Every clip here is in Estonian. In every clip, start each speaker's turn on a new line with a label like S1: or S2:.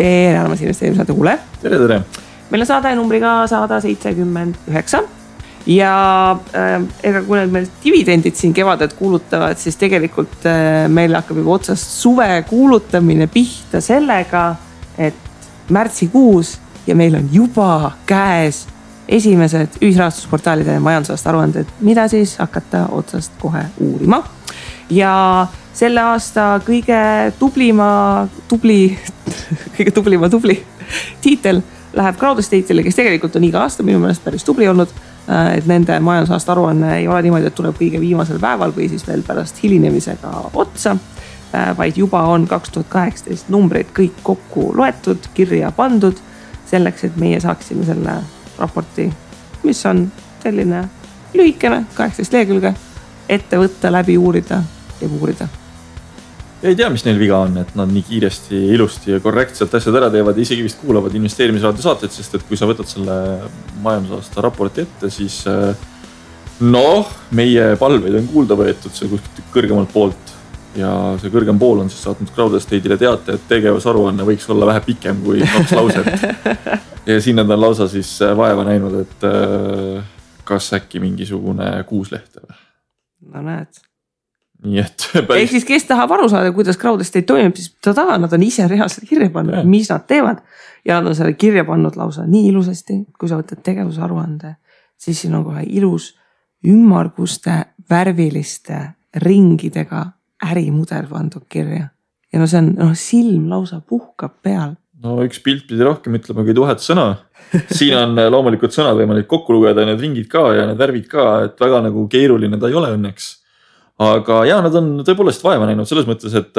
S1: tere armas investeerimissaate kuule.
S2: Tere.
S1: Meil on saade numbriga 179 ja ega kui need meil dividendid siin kevadet kuulutavad, siis tegelikult meil hakkab juba otsast suve kuulutamine pihta sellega, et märtsikuus ja meil on juba käes esimesed ühisrahastusportaalide majandusaasta aruanded, mida siis hakata otsast kohe uurima. Ja selle aasta kõige tublima tiitel läheb Crowdestate'ile, kes tegelikult on iga aasta minu meelest päris tubli olnud, et nende majandusaasta aruanne ei ole niimoodi, et tuleb kõige viimasel päeval või siis veel pärast hilinemisega otsa, vaid juba on 2018 numbrid kõik kokku loetud, kirja pandud selleks, et meie saaksime selle raporti, mis on selline lühikene 18 lehekülge, ette võtta, läbi uurida ja uurida.
S2: Ei tea, mis neil viga on, et nad nii kiiresti, ilusti ja korrektselt asjad ära teevad ja isegi vist kuulavad investeerimisraadio saateid, sest et kui sa võtad selle majandusaasta raporti ette, siis meie palveid on kuulda võetud see kuskilt kõrgemalt poolt ja see kõrgem pool on siis saatnud Crowdestate'ile teate, et tegevusaruanne võiks olla vähe pikem kui 2 lauset ja siin nad on lausa siis vaeva näinud, et kas äkki mingisugune 6 lehte või?
S1: No näed.
S2: Nii et
S1: ehk siis kes tahab aru saada, kuidas Crowdestate toimib, siis nad on ise reaalselt kirja pannud, mis nad teevad ja nad on selle kirja pannud lausa nii ilusasti, kui sa võtad tegevusaruande, siis siin on kohe ilus ümmarguste värviliste ringidega ärimudel pandud kirja ja see on silm lausa puhkab peal.
S2: No üks pilt pidi rohkem ütlema kui 1000 sõna. Siin on loomulikult sõnad võimalik kokku lugeda, need ringid ka ja need värvid ka, et väga nagu keeruline ta ei ole õnneks. Aga nad on tõepoolest vaeva näinud selles mõttes, et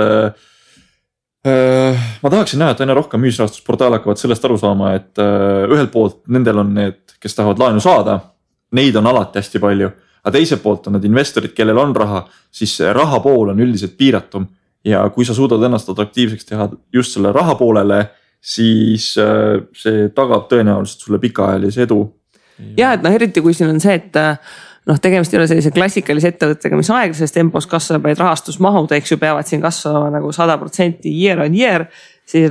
S2: ma tahaksin näha, et aina rohkem ühisrahastusportaal hakkavad sellest aru saama, et ühelt poolt nendel on need, kes tahavad laenu saada, neid on alati hästi palju, aga teiselt poolt on need investorid, kellel on raha, siis raha pool on üldiselt piiratum ja kui sa suudad ennast atraktiivseks teha just selle raha poolele, siis see tagab tõenäoliselt sulle pikaajalise edu.
S1: Ja, et eriti kui siin on see, et tegemist ei ole sellise klassikalise ettevõttega, mis aeglases tempos kasvab, vaid rahastusmahud, eks ju, peavad siin kasvama nagu 100% year on year, siis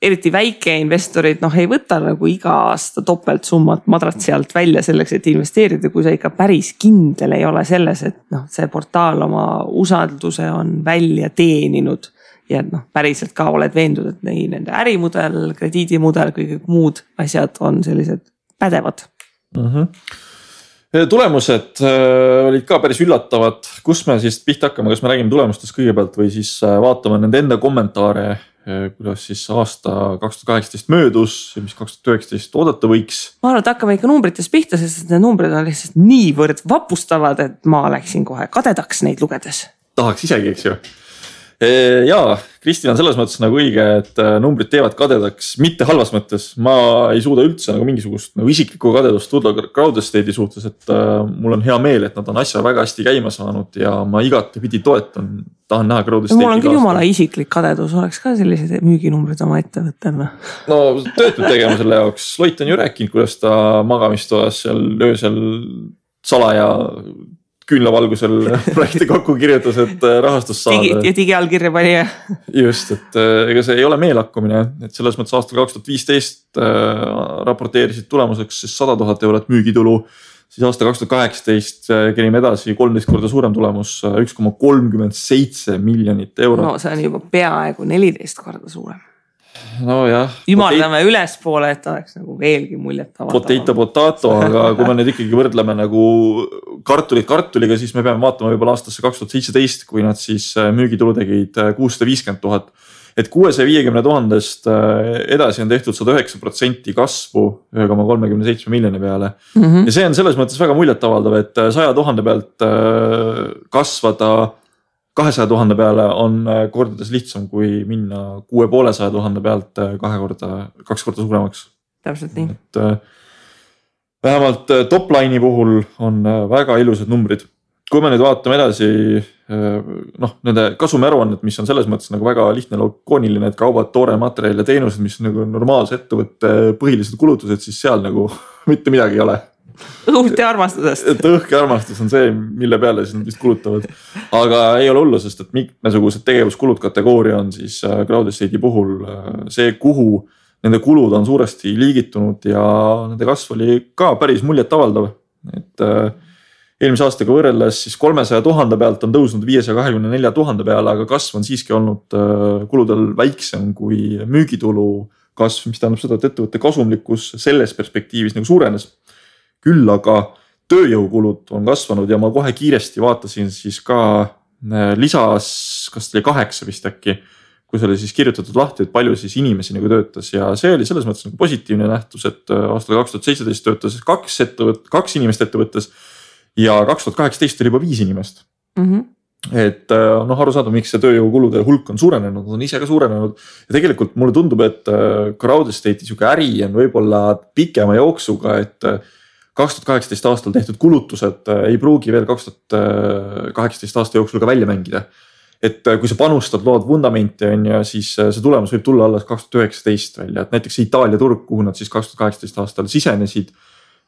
S1: eriti väike investorid ei võta nagu iga aasta topelt summat madratsi alt välja selleks, et investeerida, kui sa ikka päris kindel ei ole selles, et see portaal oma usalduse on välja teeninud ja päriselt ka oled veendud, et nende ärimudel, krediidimudel, kõik muud asjad on sellised pädevad.
S2: Tulemused olid ka päris üllatavad, kus me siis pihta hakkame, kas me räägime tulemustest kõigepealt või siis vaatame nende enda kommentaare, kuidas siis aasta 2018 möödus ja mis 2019 oodata võiks. Ma
S1: arvan, et hakkame ikka numbritest pihta, sest need numbrid on lihtsalt niivõrd vapustavad, et ma läksin kohe kadedaks neid lugedes.
S2: Tahaks isegi, eks ju. Jaa, Kristin on selles mõttes nagu õige, et numbrid teevad kadedaks, mitte halvas mõttes. Ma ei suuda üldse nagu mingisugust isiklikku kadedust tulla Crowdestate'i suhtes, et mul on hea meel, et nad on asja väga hästi käima saanud ja ma igatepidi toetan, tahan näha Crowdestate'i.
S1: Mul on küll jumala isiklik kadedus, oleks ka sellised müüginumbrid oma ettevõttel.
S2: No töötud tegema selle jaoks. Loit on ju rääkinud, kuidas ta magamistoas seal öösel salaja küünlavalgusel projekti kokku kirjutas, et rahastus saada.
S1: Ja digiallkirja pani.
S2: Just, et ega see ei ole meelakkumine, et selles mõttes aastal 2015 raporteerisid tulemuseks 100 000 eurot müügitulu, siis aasta 2018 kerime edasi 13 korda suurem tulemus, 1,37 miljonit eurot.
S1: No see on juba peaaegu 14 korda suurem.
S2: No jah.
S1: Ümardame ülespoole, et oleks nagu veelgi muljet avaldama.
S2: Potato, aga kui me nüüd ikkagi võrdleme nagu kartulit kartuliga, siis me peame vaatama võib-olla aastasse 2017, kui nad siis müügitulu tegid 650 000. Et 650 000 edasi on tehtud 109% kasvu 1,37 miljoni peale. Ja see on selles mõttes väga muljet avaldav, et 100 000 pealt kasvada 200 000 peale on kordades lihtsam kui minna 650 000 pealt 2 korda suuremaks.
S1: Täpselt nii.
S2: Et vähemalt topline'i puhul on väga ilusad numbrid. Kui me nüüd vaatame edasi nende kasumiaruannet, mis on selles mõttes nagu väga lihtne lokooniline, et kaubad, toore materjal ja teenused, mis on nagu normaalse ettevõtte põhilised kulutused, siis seal nagu mitte midagi ei ole.
S1: õhust ja armastusest.
S2: et õhk ja armastus on see, mille peale siis nad vist kulutavad. Aga ei ole hullu, sest et mitmesugused tegevuskulud kategooria on siis Crowd Estate'i puhul see, kuhu nende kulud on suuresti liigitunud ja nende kasv oli ka päris muljetavaldav. Et eelmise aastaga võrreldes siis 300 000 pealt on tõusnud 524 000 peale, aga kasv on siiski olnud kuludel väiksem kui müügitulu kasv, mis tähendab seda, et ettevõtte kasumlikkus selles perspektiivis nagu suurenes. Küll aga tööjõukulud on kasvanud ja ma kohe kiiresti vaatasin siis ka lisas, kas oli 8 vist äkki, kus oli siis kirjutatud lahti, et palju siis inimesi nagu töötas ja see oli selles mõttes nagu positiivne nähtus, et aastal 2017 töötas 2 inimest ettevõttes ja 2018 oli juba 5 inimest. Et arusaadav, miks see tööjõukulude hulk on suurenenud, on ise ka suurenenud ja tegelikult mulle tundub, et Crowd Estate'i sihuke äri on võib-olla pikema jooksuga, et 2018 aastal tehtud kulutused ei pruugi veel 2018 aasta jooksul ka välja mängida. Et kui sa panustad, lood vundamenti on ja siis see tulemus võib tulla alles 2019 välja, et näiteks Itaalia turg, kuhu nad siis 2018 aastal sisenesid.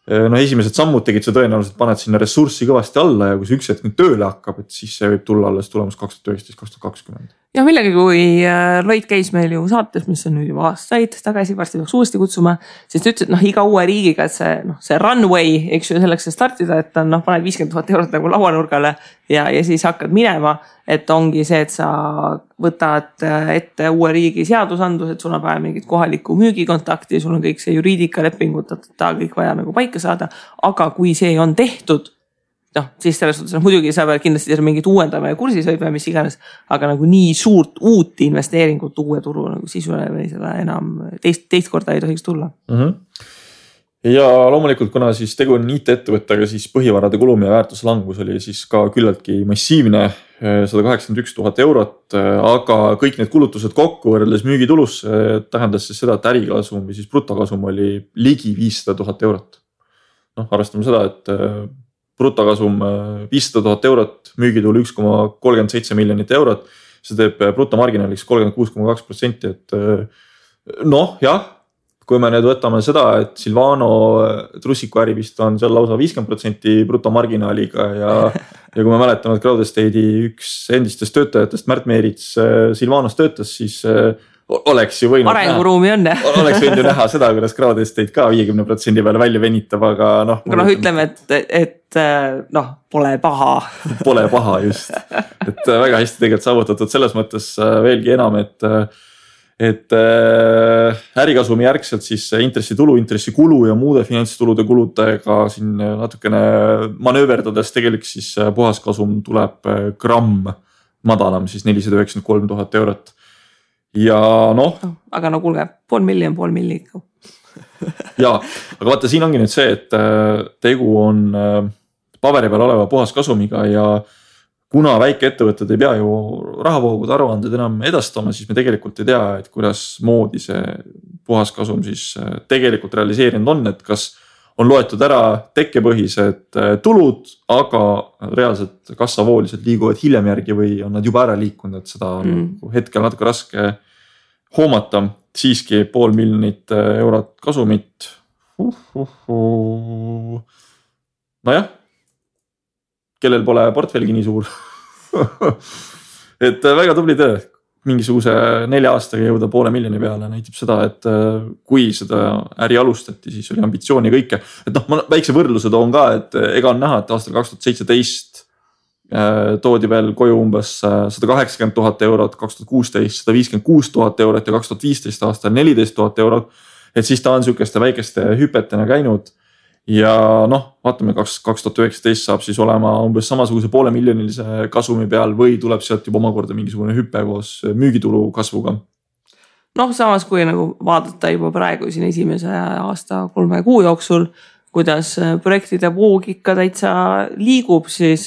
S2: Esimesed sammud tegid see tõenäoliselt, paned sinna ressurssi kõvasti alla ja kui see üks hetk nüüd tööle hakkab, et siis see võib tulla alles tulemus 2019-2020.
S1: Ja millegi, kui Lloyd käis meil ju saates, mis on nüüd juba aastaid tagasi, varsti peaks uuesti kutsuma, siis ta ütles, et iga uue riigiga, et see runway, eks ju, selleks startida, et on paned 50 000 eurot nagu lauanurgale ja siis hakkad minema, et ongi see, et sa võtad ette uue riigi seadusandlus, et sul on vaja mingit kohalikku müügikontakti, sul on kõik see juriidikalepingud, kõik vaja nagu paika saada, aga kui see on tehtud, siis selles suhtes muidugi sa pead kindlasti mingit uuendama ja kursis hoidma, mis iganes, aga nagu nii suurt uut investeeringut uue turu nagu sisule või seda enam teist korda ei tohiks tulla.
S2: Ja loomulikult, kuna siis tegu on IT-ettevõttega, siis põhivarade kulum ja väärtuslangus oli siis ka küllaltki massiivne, 181 000 eurot, aga kõik need kulutused kokku võrreldes müügitulus tähendas siis seda, et ärikasum või siis brutokasum oli ligi 500 000 eurot. Arvestame seda, et brutokasum 500 000 eurot, müügitulu 1,37 miljonit eurot, see teeb brutomarginaaliks 36,2%, et jah, kui me nüüd võtame seda, et Silvano trussiku äri vist on seal lausa 50% brutomarginaaliga ja kui me mäletame, et Crowd Estate'i üks endistest töötajatest, Märt Meerits Silvanos töötas, siis oleks ju võinud
S1: arenguruumi on,
S2: oleks võinud ju näha seda, kuidas Crowd Estate ka 50% peale välja venitab, aga
S1: ütleme, et pole paha.
S2: Pole paha just, et väga hästi tegelikult saavutatud selles mõttes veelgi enam, et ärikasumi järgselt siis intressitulu, intressikulu ja muude finantstulude kuludega siin natukene manööverdades tegelikult siis puhaskasum tuleb gramm madalam, siis 493 000 eurot. Ja
S1: aga kuulge, pool milli ikka.
S2: Ja, aga vaata, siin ongi nüüd see, et tegu on paberi peal oleva puhaskasumiga ja kuna väikeettevõtted ei pea ju rahavoogude aruanded enam edastama, siis me tegelikult ei tea, et kuidas moodi see puhaskasum siis tegelikult realiseerinud on, et kas on loetud ära tekkepõhised tulud, aga reaalselt kassavooliselt liiguvad hiljem järgi või on nad juba ära liikunud, et seda on hetkel natuke raske hoomata. Siiski 500 000 eurot kasumit. Nojah, kellel pole portfelgi nii suur. Et väga tubli töö. Mingisuguse 4 aastaga jõuda 500 000 peale näitab seda, et kui seda äri alustati, siis oli ambitsiooni kõike. Et ma väikse võrdluse toon ka, et ega on näha, et aastal 2017 toodi veel koju umbes 180 000 eurot, 2016 156 000 eurot ja 2015 aastal 14 000 eurot. Et siis ta on sükeste väikeste hüpetena käinud. Ja vaatame, 2019 saab siis olema umbes samasuguse 500 000 kasumi peal või tuleb sealt juba omakorda mingisugune hüpe koos müügitulu kasvuga.
S1: Samas kui nagu vaadata juba praegu siin esimese aasta 3 kuu jooksul, kuidas projektide voog ikka täitsa liigub, siis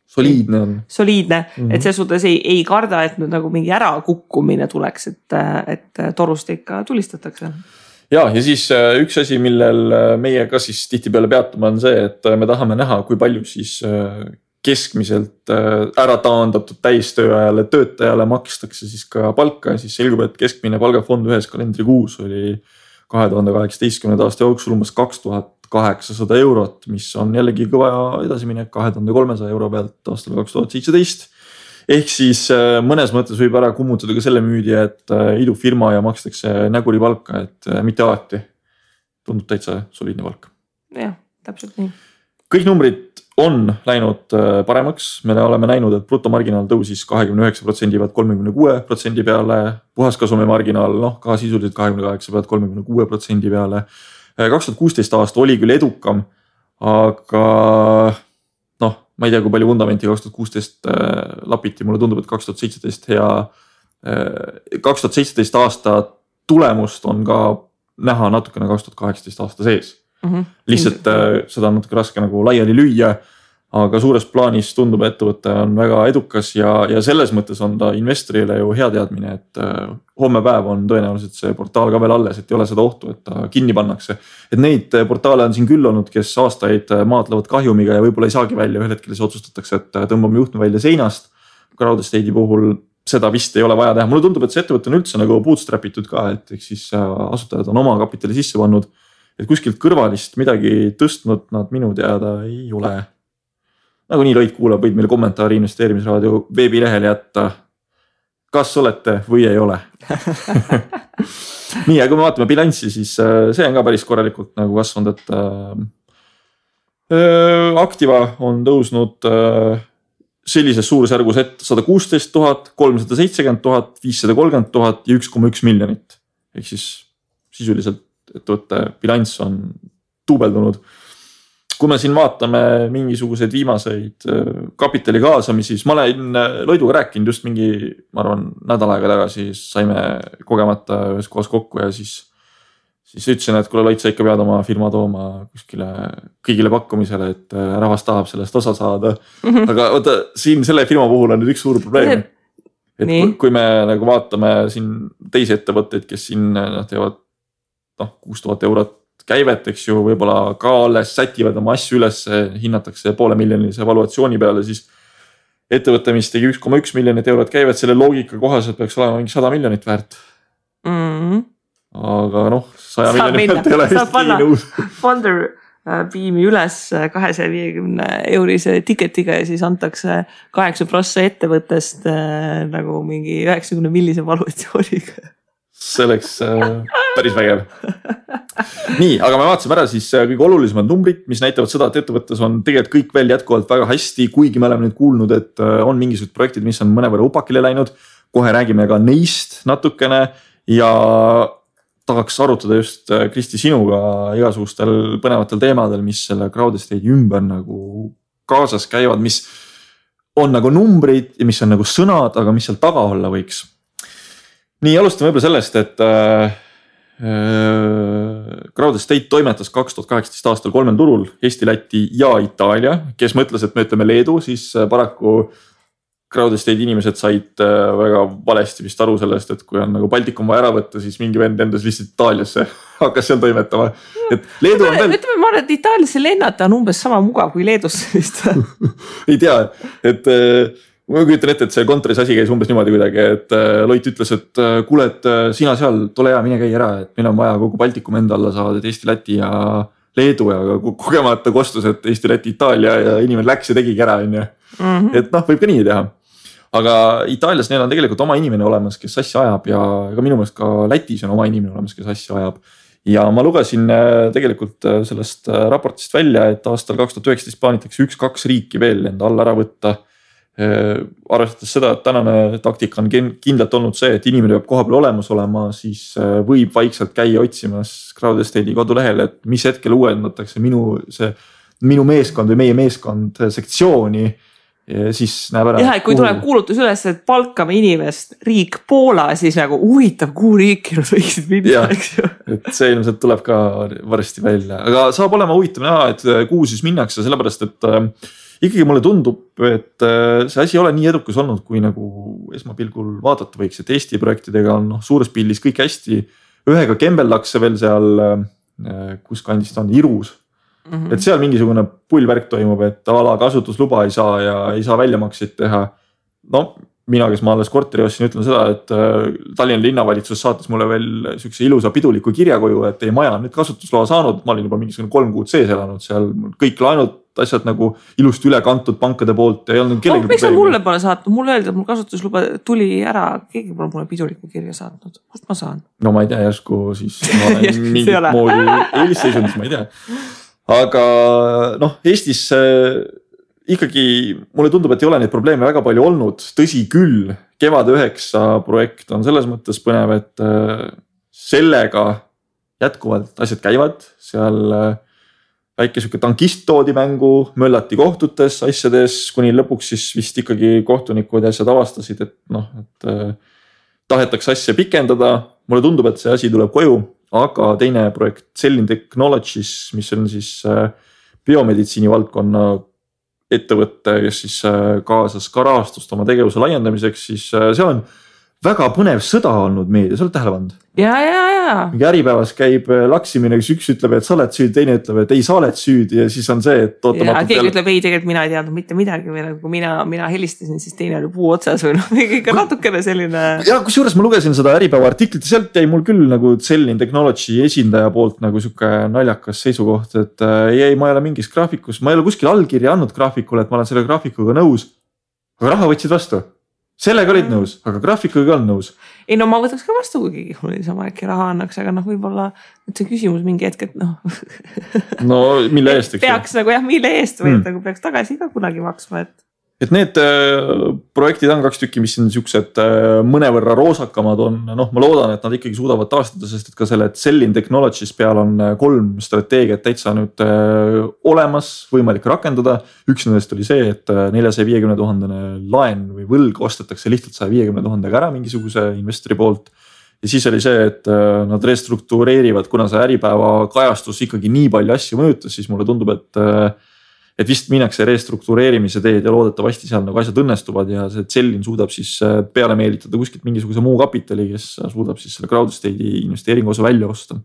S2: soliidne on.
S1: Soliidne, et see suhtes ei karda, et nüüd nagu mingi ärakukkumine tuleks, et torust ikka tulistatakse.
S2: Ja siis üks asi, millel meie ka siis tihtipeale peatuma on see, et me tahame näha, kui palju siis keskmiselt ära taandatud täistööajale töötajale makstakse siis ka palka ja siis selgub, et keskmine palgafond ühes kalendrikuus oli 2018. aasta jooksul umbes 800 eurot, mis on jällegi kõva edasiminek 2300 euro pealt aastal 2017. Ehk siis mõnes mõttes võib ära kummutada ka selle müüdi, et idufirma ja makstakse näguri palka, et mitte alati. Tundub täitsa soliidne palk.
S1: Jah, täpselt nii.
S2: Kõik numbrid on läinud paremaks. Me oleme näinud, et brutomarginaal tõusis 29% pealt 36% peale. Puhaskasumi marginaal, ka sisuliselt 28% pealt 36% peale. 2016 aasta oli küll edukam, aga ma ei tea, kui palju vundamenti 2016 lapiti. Mulle tundub, et 2017 aasta tulemust on ka näha natukene 2018 aasta sees. Lihtsalt seda on natuke raske nagu laiali lüüa, aga suures plaanis tundub, et ettevõte on väga edukas ja selles mõttes on ta investorile ju hea teadmine, et homme päev on tõenäoliselt see portaal ka veel alles, et ei ole seda ohtu, et ta kinni pannakse. Et neid portaale on siin küll olnud, kes aastaid maadlevad kahjumiga ja võib-olla ei saagi välja, ühel hetkel siis otsustatakse, et tõmbame juhtme välja seinast. Crowdestate'i puhul seda vist ei ole vaja teha. Mulle tundub, et see ettevõte on üldse nagu bootstrapitud ka, et eks siis asutajad on oma kapitali sisse pannud. Et kuskilt kõrvalist midagi tõstnud nad minu teada ei ole. Nagu nii Loit kuulab, võid meile kommentaari investeerimisraadio veebilehel jätta. Kas olete või ei ole? Nii, ja kui me vaatame bilanssi, siis see on ka päris korralikult nagu kasvanud, et Activa on tõusnud sellises suurusjärgus, et 116 000, 370 000, 530 000 ja 1,1 miljonit. Ehk siis sisuliselt ettevõtte bilanss on tuubeldunud. Kui me siin vaatame mingisuguseid viimaseid kapitali kaasamisi, siis ma olen Loiduga rääkinud just mingi, ma arvan, nädal aega tagasi, saime kogemata ühes kohas kokku ja siis ütlesin, et kuule Loit, sa ikka pead oma firma tooma kuskile kõigile pakkumisele, et rahvas tahab sellest osa saada. Aga oota, siin selle firma puhul on nüüd üks suur probleem. Et kui me nagu vaatame siin teisi ettevõtteid, kes siin teevad 6000 eurot käivet, eks ju, võib-olla ka alles sätivad oma asju üles, hinnatakse $500,000 valuatsiooni peale, siis ettevõte, mis tegi 1,1 miljonit eurot käivet, selle loogika kohaselt peaks olema mingi 100 miljonit väärt. Aga 100 miljonit väärt ei ole vist kiini nõus.
S1: Founder piimi üles 250 eurise tiketiga ja siis antakse 8% ettevõttest nagu mingi 90 millise valuatsiooniga.
S2: See oleks päris vägev. Nii, aga me vaatasime ära siis kõige olulisemad numbrid, mis näitavad seda, et ettevõttes on tegelikult kõik veel jätkuvalt väga hästi, kuigi me oleme nüüd kuulnud, et on mingisugused projektid, mis on mõnevõrra upakile läinud. Kohe räägime ka neist natukene ja tahaks arutada just Kristi sinuga igasugustel põnevatel teemadel, mis selle Crowdestate'i ümber nagu kaasas käivad, mis on nagu numbrid ja mis on nagu sõnad, aga mis seal taga olla võiks. Nii, alustame võib-olla sellest, et Crowdestate toimetas 2018 aastal 3 turul, Eesti, Läti ja Itaalia. Kes mõtles, et me ütleme Leedu, siis paraku Crowdestate inimesed said väga valesti vist aru sellest, et kui on nagu Baltikum vaja ära võtta, siis mingi vend endas lihtsalt Itaaliasse hakkas seal toimetama. Et Leedu on veel...
S1: Ütleme, ma arvan, et Itaaliasse lennata on umbes sama mugav kui Leedusse vist.
S2: Ei tea, et... Ma kujutan ette, et see kontoris asi käis umbes niimoodi kuidagi, et Loit ütles, et kuule, et sina seal, tule hea, mine käi ära, et meil on vaja kogu Baltikum enda alla saada, et Eesti, Läti ja Leedu ja kogemata kostus, et Eesti, Läti, Itaalia ja inimene läks ja tegigi ära. Et võib ka nii teha. Aga Itaalias neil on tegelikult oma inimene olemas, kes asja ajab ja ka minu meelest ka Lätis on oma inimene olemas, kes asja ajab. Ja ma lugesin tegelikult sellest raportist välja, et aastal 2019 plaanitakse 1-2 riiki veel enda alla ära võtta. Arvestades seda, et tänane taktika on kindlalt olnud see, et inimene peab koha peal olemas olema, siis võib vaikselt käia otsimas Crowdestate'i kodulehel, et mis hetkel uuendatakse minu meeskond või meie meeskond sektsiooni, siis näeb ära.
S1: Jah, et kui tuleb kuulutus üles, et palkame inimest riik Poola, siis nagu huvitav, kuhu riiki nad võiksid minna, eks ju.
S2: Et see ilmselt tuleb ka varsti välja, aga saab olema huvitav näha, et kuhu siis minnakse, sellepärast, et ikkagi mulle tundub, et see asi ei ole nii edukas olnud, kui nagu esmapilgul vaadata võiks, et Eesti projektidega on suures pildis kõik hästi. Ühega kembeldakse veel seal, kus kandist on Irus. Et seal mingisugune pullvärk toimub, et ala kasutusluba ei saa ja ei saa väljamakseid teha. mina, kes ma alles korteri ostsin, ütlen seda, et Tallinna linnavalitsus saatis mulle veel siukse ilusa piduliku kirja koju, et teie maja on nüüd kasutusloa saanud. Ma olin juba mingisugune 3 kuud sees elanud seal, kõik laenud, asjad nagu ilusti üle kantud pankade poolt. Ei olnud kellegi
S1: miks sa mulle pole saatnud? Mulle öeldi, et mul kasutusluba tuli ära. Keegi pole mulle piduliku kirja saatnud. Kust ma saan?
S2: No ma ei tea, järsku siis ma olen mingit moodi eelisseisundis, ma ei tea. Aga Eestis ikkagi mulle tundub, et ei ole neid probleeme väga palju olnud. Tõsi küll, Kevad 9 projekt on selles mõttes põnev, et sellega jätkuvalt asjad käivad. Seal väike siuke tankist toodi mängu, möllati kohtutes asjades, kuni lõpuks siis vist ikkagi kohtunikud ja asjad avastasid, et tahetakse asja pikendada. Mulle tundub, et see asi tuleb koju, aga teine projekt Cellin Technologies, mis on siis biomeditsiini valdkonna ettevõtte, kes siis kaasas ka rahastust oma tegevuse laiendamiseks, siis seal on väga põnev sõda olnud meedias, oled tähele pannud?
S1: Ja.
S2: Mingi Äripäevas käib laksimine, kus üks ütleb, et sa oled süüdi, teine ütleb, et ei, sa oled süüdi ja siis on see, et ootamatult.
S1: Keegi ütleb, ei, tegelikult mina ei teadnud mitte midagi või kui mina helistasin, siis teine oli puu otsas või ikka natukene selline.
S2: Ja kusjuures ma lugesin seda Äripäeva artiklit ja sealt jäi mul küll nagu Cellin Technology esindaja poolt nagu siuke naljakas seisukoht, et ei, ma ei ole mingis graafikus, ma ei ole kuskil allkirja andnud graafikule, et ma olen selle graafikuga nõus. Aga raha võtsid vastu. Sellega olid nõus, aga graafikuga on nõus.
S1: Ei, ma võtaks ka vastu, kui keegi mul sama äkki raha annaks, aga võib-olla see küsimus mingi hetk, et
S2: No mille eest?
S1: Peaks nagu mille eest või nagu peaks tagasi ka kunagi maksma,
S2: et need projektid on 2 tükki, mis on siuksed mõnevõrra roosakamad on. Ma loodan, et nad ikkagi suudavad taastada, sest et ka selle Cellin Technologies peal on 3 strateegiat täitsa nüüd olemas, võimalik rakendada. Üks nendest oli see, et 450 000 laen või võlg ostetakse lihtsalt 150 000 ära mingisuguse investori poolt. Ja siis oli see, et nad restruktureerivad, kuna see Äripäeva kajastus ikkagi nii palju asju mõjutas, siis mulle tundub, et vist minnakse restruktureerimise teed ja loodetavasti seal nagu asjad õnnestuvad ja see Cellin suudab siis peale meelitada kuskilt mingisuguse muu kapitali, kes suudab siis selle crowd estate'i investeeringu osa välja osta.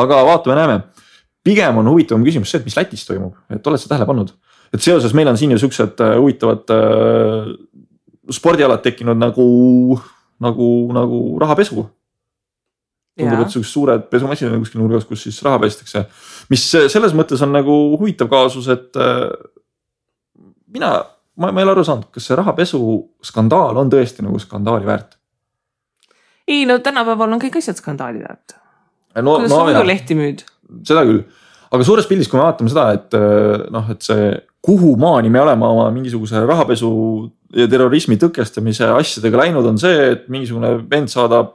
S2: Aga vaatame, näeme. Pigem on huvitavam küsimus see, et mis Lätis toimub, et oled sa tähele pannud, et seoses meil on siin ju siuksed huvitavad spordialad tekkinud nagu rahapesu. Tundub, et siuksed suured pesumasinad kuskil nurgas, kus siis raha pestakse. Mis selles mõttes on nagu huvitav kaasus, et ma ei ole aru saanud, kas see rahapesu skandaal on tõesti nagu skandaali väärt?
S1: Ei, tänapäeval on kõik asjad skandaali väärt. Kuidas sa muidu lehti müüd?
S2: Seda küll. Aga suures pildis, kui me vaatame seda, et see kuhu maani me oleme oma mingisuguse rahapesu ja terrorismi tõkestamise asjadega läinud, on see, et mingisugune vend saadab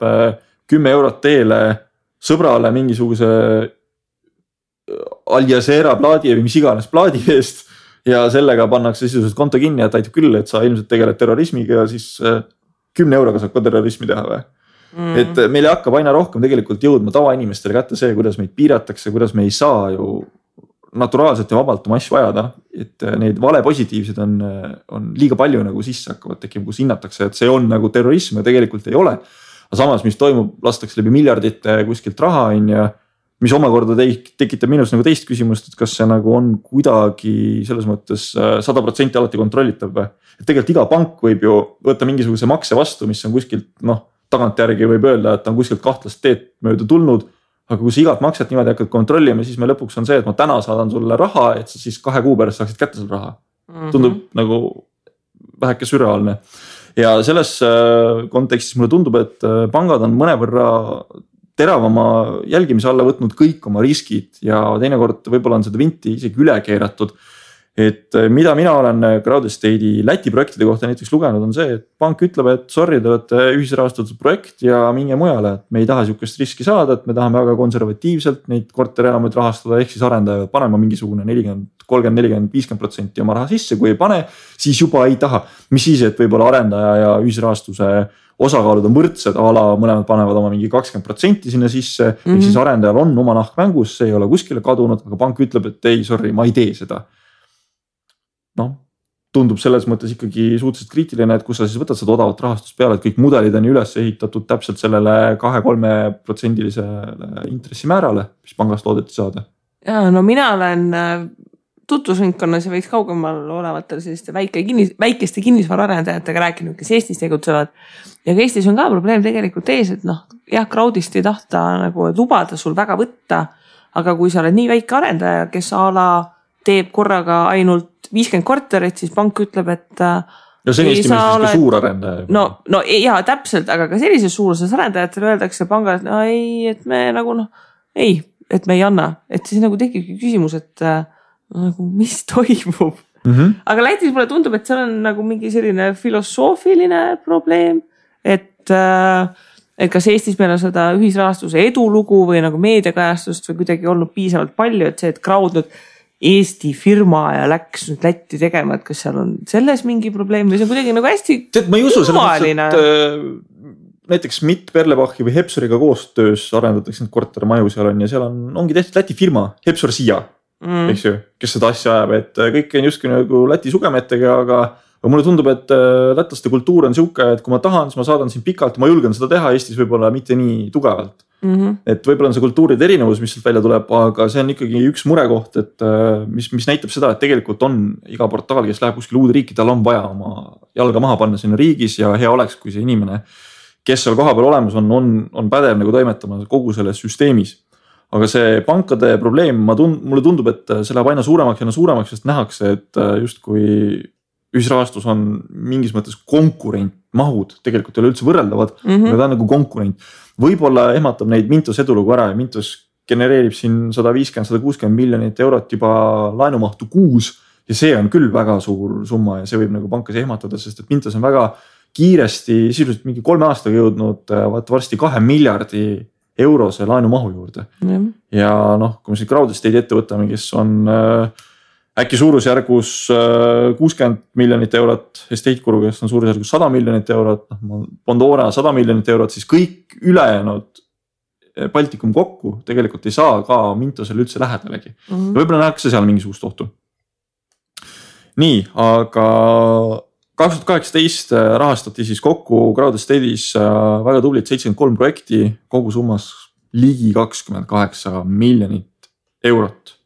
S2: 10 eurot teele sõbrale mingisuguse Al Jazeera plaadi või mis iganes plaadi eest ja sellega pannakse sisuliselt konto kinni, et aitab küll, et sa ilmselt tegeled terrorismiga ja siis 10 euroga saab ka terrorismi teha või. Et meile hakkab aina rohkem tegelikult jõudma tavainimestele kätte see, kuidas meid piiratakse, kuidas me ei saa ju naturaalselt ja vabalt oma asju ajada, et neid vale positiivsed on liiga palju nagu sisse hakkavad tekima, kus hinnatakse, et see on nagu terrorism ja tegelikult ei ole. Aga samas, mis toimub, lastakse läbi miljardite kuskilt raha ja mis omakorda tekitab minus nagu teist küsimust, et kas see nagu on kuidagi selles mõttes 100% alati kontrollitav või. Et tegelikult iga pank võib ju võtta mingisuguse makse vastu, mis on kuskilt, tagantjärgi võib öelda, et on kuskilt kahtlast teed mööda tulnud. Aga kui sa igat makset niimoodi hakkad kontrollima, siis me lõpuks on see, et ma täna saadan sulle raha, et sa siis 2 kuu pärast saaksid kätte selle raha. Tundub nagu väheke sürreaalne. Ja selles kontekstis mulle tundub, et pangad on mõnevõrra teravama jälgimise alla võtnud kõik oma riskid ja teinekord võib-olla on seda vinti isegi üle keeratud. Et mida mina olen crowd estate'i Läti projektide kohta näiteks lugenud on see, et pank ütleb, et sorry, te olete ühisrahastatud projekt ja minge mujale, et me ei taha siukest riski saada, et me tahame väga konservatiivselt neid korterelamuid rahastada, ehk siis arendaja panema mingisugune 40, 30, 40, 50% oma raha sisse, kui ei pane, siis juba ei taha. Mis siis, et võib-olla arendaja ja ühisrahastuse osakaalud on võrdsed, mõlemad panevad oma mingi 20% sinna sisse, ehk siis arendajal on oma nahk mängus, see ei ole kuskile kadunud, aga pank ütleb, et ei, sorry, ma ei tee seda. Tundub selles mõttes ikkagi suhteliselt kriitiline, et kus sa siis võtad seda odavat rahastust peale, et kõik mudelid on üles ehitatud täpselt sellele 2-3% intressimäärale, mis pangast loodeti saada.
S1: Ja mina olen tutvusringkonnas ja võiks kaugemal olevatel selliste väikeste kinnisvaraarendajatega rääkinud, kes Eestis tegutsevad. Ja ka Eestis on ka probleem tegelikult ees, et noh, jah, crowdist ei tahta nagu lubada sul väga võtta, aga kui sa oled nii väike arendaja, kes teeb korraga ainult 50 korterit, siis pank ütleb, et
S2: no see on Eesti mõistes suur arendaja.
S1: No jaa, täpselt, aga ka sellises suuruses arendajatele öeldakse pangale, et no ei, et me nagu ei, et me ei anna. Et siis nagu tekibki küsimus, et nagu mis toimub. Aga Lätis mulle tundub, et seal on nagu mingi selline filosoofiline probleem, et kas Eestis meil on seda ühisrahastuse edulugu või nagu meediakajastust või kuidagi olnud piisavalt palju, et see, et crowd nüüd Eesti firma ja läks nüüd Lätti tegema, et kas seal on selles mingi probleem või see on kuidagi nagu hästi
S2: ma ei usu selles mõttes, et näiteks Mitt Perlebachi või Hepsuriga koostöös arendatakse need kortermaju seal on ja seal ongi tehtud Läti firma, Hepsur Siia, eks ju, kes seda asja ajab, et kõik on justkui nagu Läti sugemetega, aga mulle tundub, et lätlaste kultuur on siuke, et kui ma tahan, siis ma saadan siin pikalt ja ma julgen seda teha Eestis võib-olla mitte nii tugevalt. Et võib-olla on see kultuuride erinevus, mis sealt välja tuleb, aga see on ikkagi üks murekoht, et mis näitab seda, et tegelikult on iga portaal, kes läheb kuskil uude riiki, tal on vaja oma jalga maha panna sinna riigis ja hea oleks, kui see inimene, kes seal kohapeal olemas on pädev nagu toimetama kogu selles süsteemis. Aga see pankade probleem, mulle tundub, et see läheb aina suuremaks, sest nähakse, et justkui ühisrahastus on mingis mõttes konkurent, mahud tegelikult ei ole üldse võrreldavad, aga ta on nagu konkurent. Võib-olla ehmatab neid Mintos edulugu ära ja Mintos genereerib siin 150-160 miljonit eurot juba laenumahtu kuus ja see on küll väga suur summa ja see võib nagu pankas ehmatada, sest et Mintos on väga kiiresti, sisuliselt mingi 3 aastaga jõudnud varsti 2 miljardi eurose laenumahu juurde. Ja noh, kui me siin crowd estate ette võtame, kes on äkki suurusjärgus 60 miljonit eurot, estate kuru, kes on suurusjärgus 100 miljonit eurot, Pandora 100 miljonit eurot, siis kõik ülejäänud Baltikum kokku tegelikult ei saa ka Mintosele üldse lähedalegi. Võib-olla nähakse seal mingisugust ohtu. Nii, aga 2018 rahastati siis kokku crowd estate'is väga tublit 73 projekti, kogu summas ligi 28 miljonit eurot.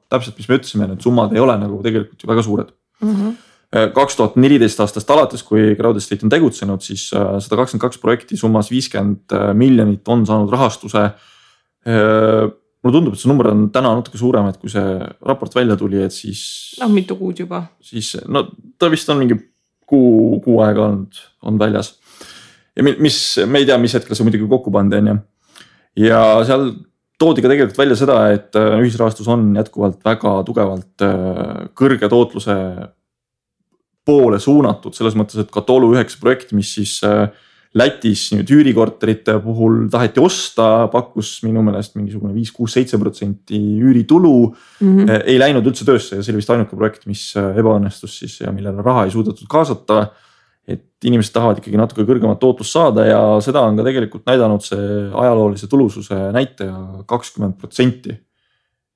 S2: Täpselt, mis me ütlesime, need summad ei ole nagu tegelikult ju väga suured. 2014 aastast alates, kui crowd estate on tegutsenud, siis 122 projekti summas 50 miljonit on saanud rahastuse. Mulle tundub, et see number on täna natuke suurem, et kui see raport välja tuli, et siis
S1: mitu kuud juba.
S2: Siis, ta vist on mingi kuu aega on väljas. Ja me ei tea, mis hetkel see muidugi kokku pandi on ja seal toodi ka tegelikult välja seda, et ühisrahastus on jätkuvalt väga tugevalt kõrge tootluse poole suunatud, selles mõttes, et Katolu 9 projekt, mis siis Lätis nüüd üürikorterite puhul taheti osta, pakkus minu meelest mingisugune 5-6-7% üüritulu, ei läinud üldse töösse ja see oli vist ainuke projekt, mis ebaõnnestus siis ja millele raha ei suudetud kaasata. Et inimesed tahavad ikkagi natuke kõrgemat tootlust saada ja seda on ka tegelikult näidanud see ajaloolise tulususe näitaja 20%.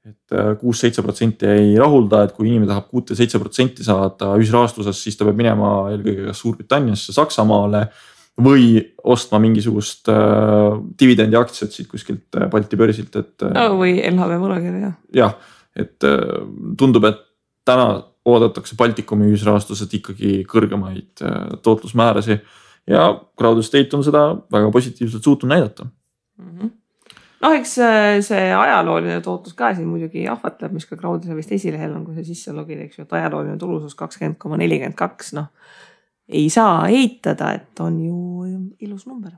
S2: Et 6-7% ei rahulda, et kui inimene tahab 6-7% saada ühisrahastuses, siis ta peab minema eelkõige kas Suurbritanniasse, Saksamaale või ostma mingisugust dividendi aktsiat siit kuskilt Balti börsilt.
S1: Või LHV võlakirja.
S2: Jah, et tundub, et täna oodatakse Baltikumi ühisrahastuselt ikkagi kõrgemaid tootlusmäärasi ja crowd estate on seda väga positiivselt suutnud näidata.
S1: Eks see ajalooline tootlus ka siin muidugi ahvatleb, mis ka crowd'is vist esilehel on, kui see sisse logid, eks ju, et ajalooline tulusus 20,42, ei saa eitada, et on ju ilus number.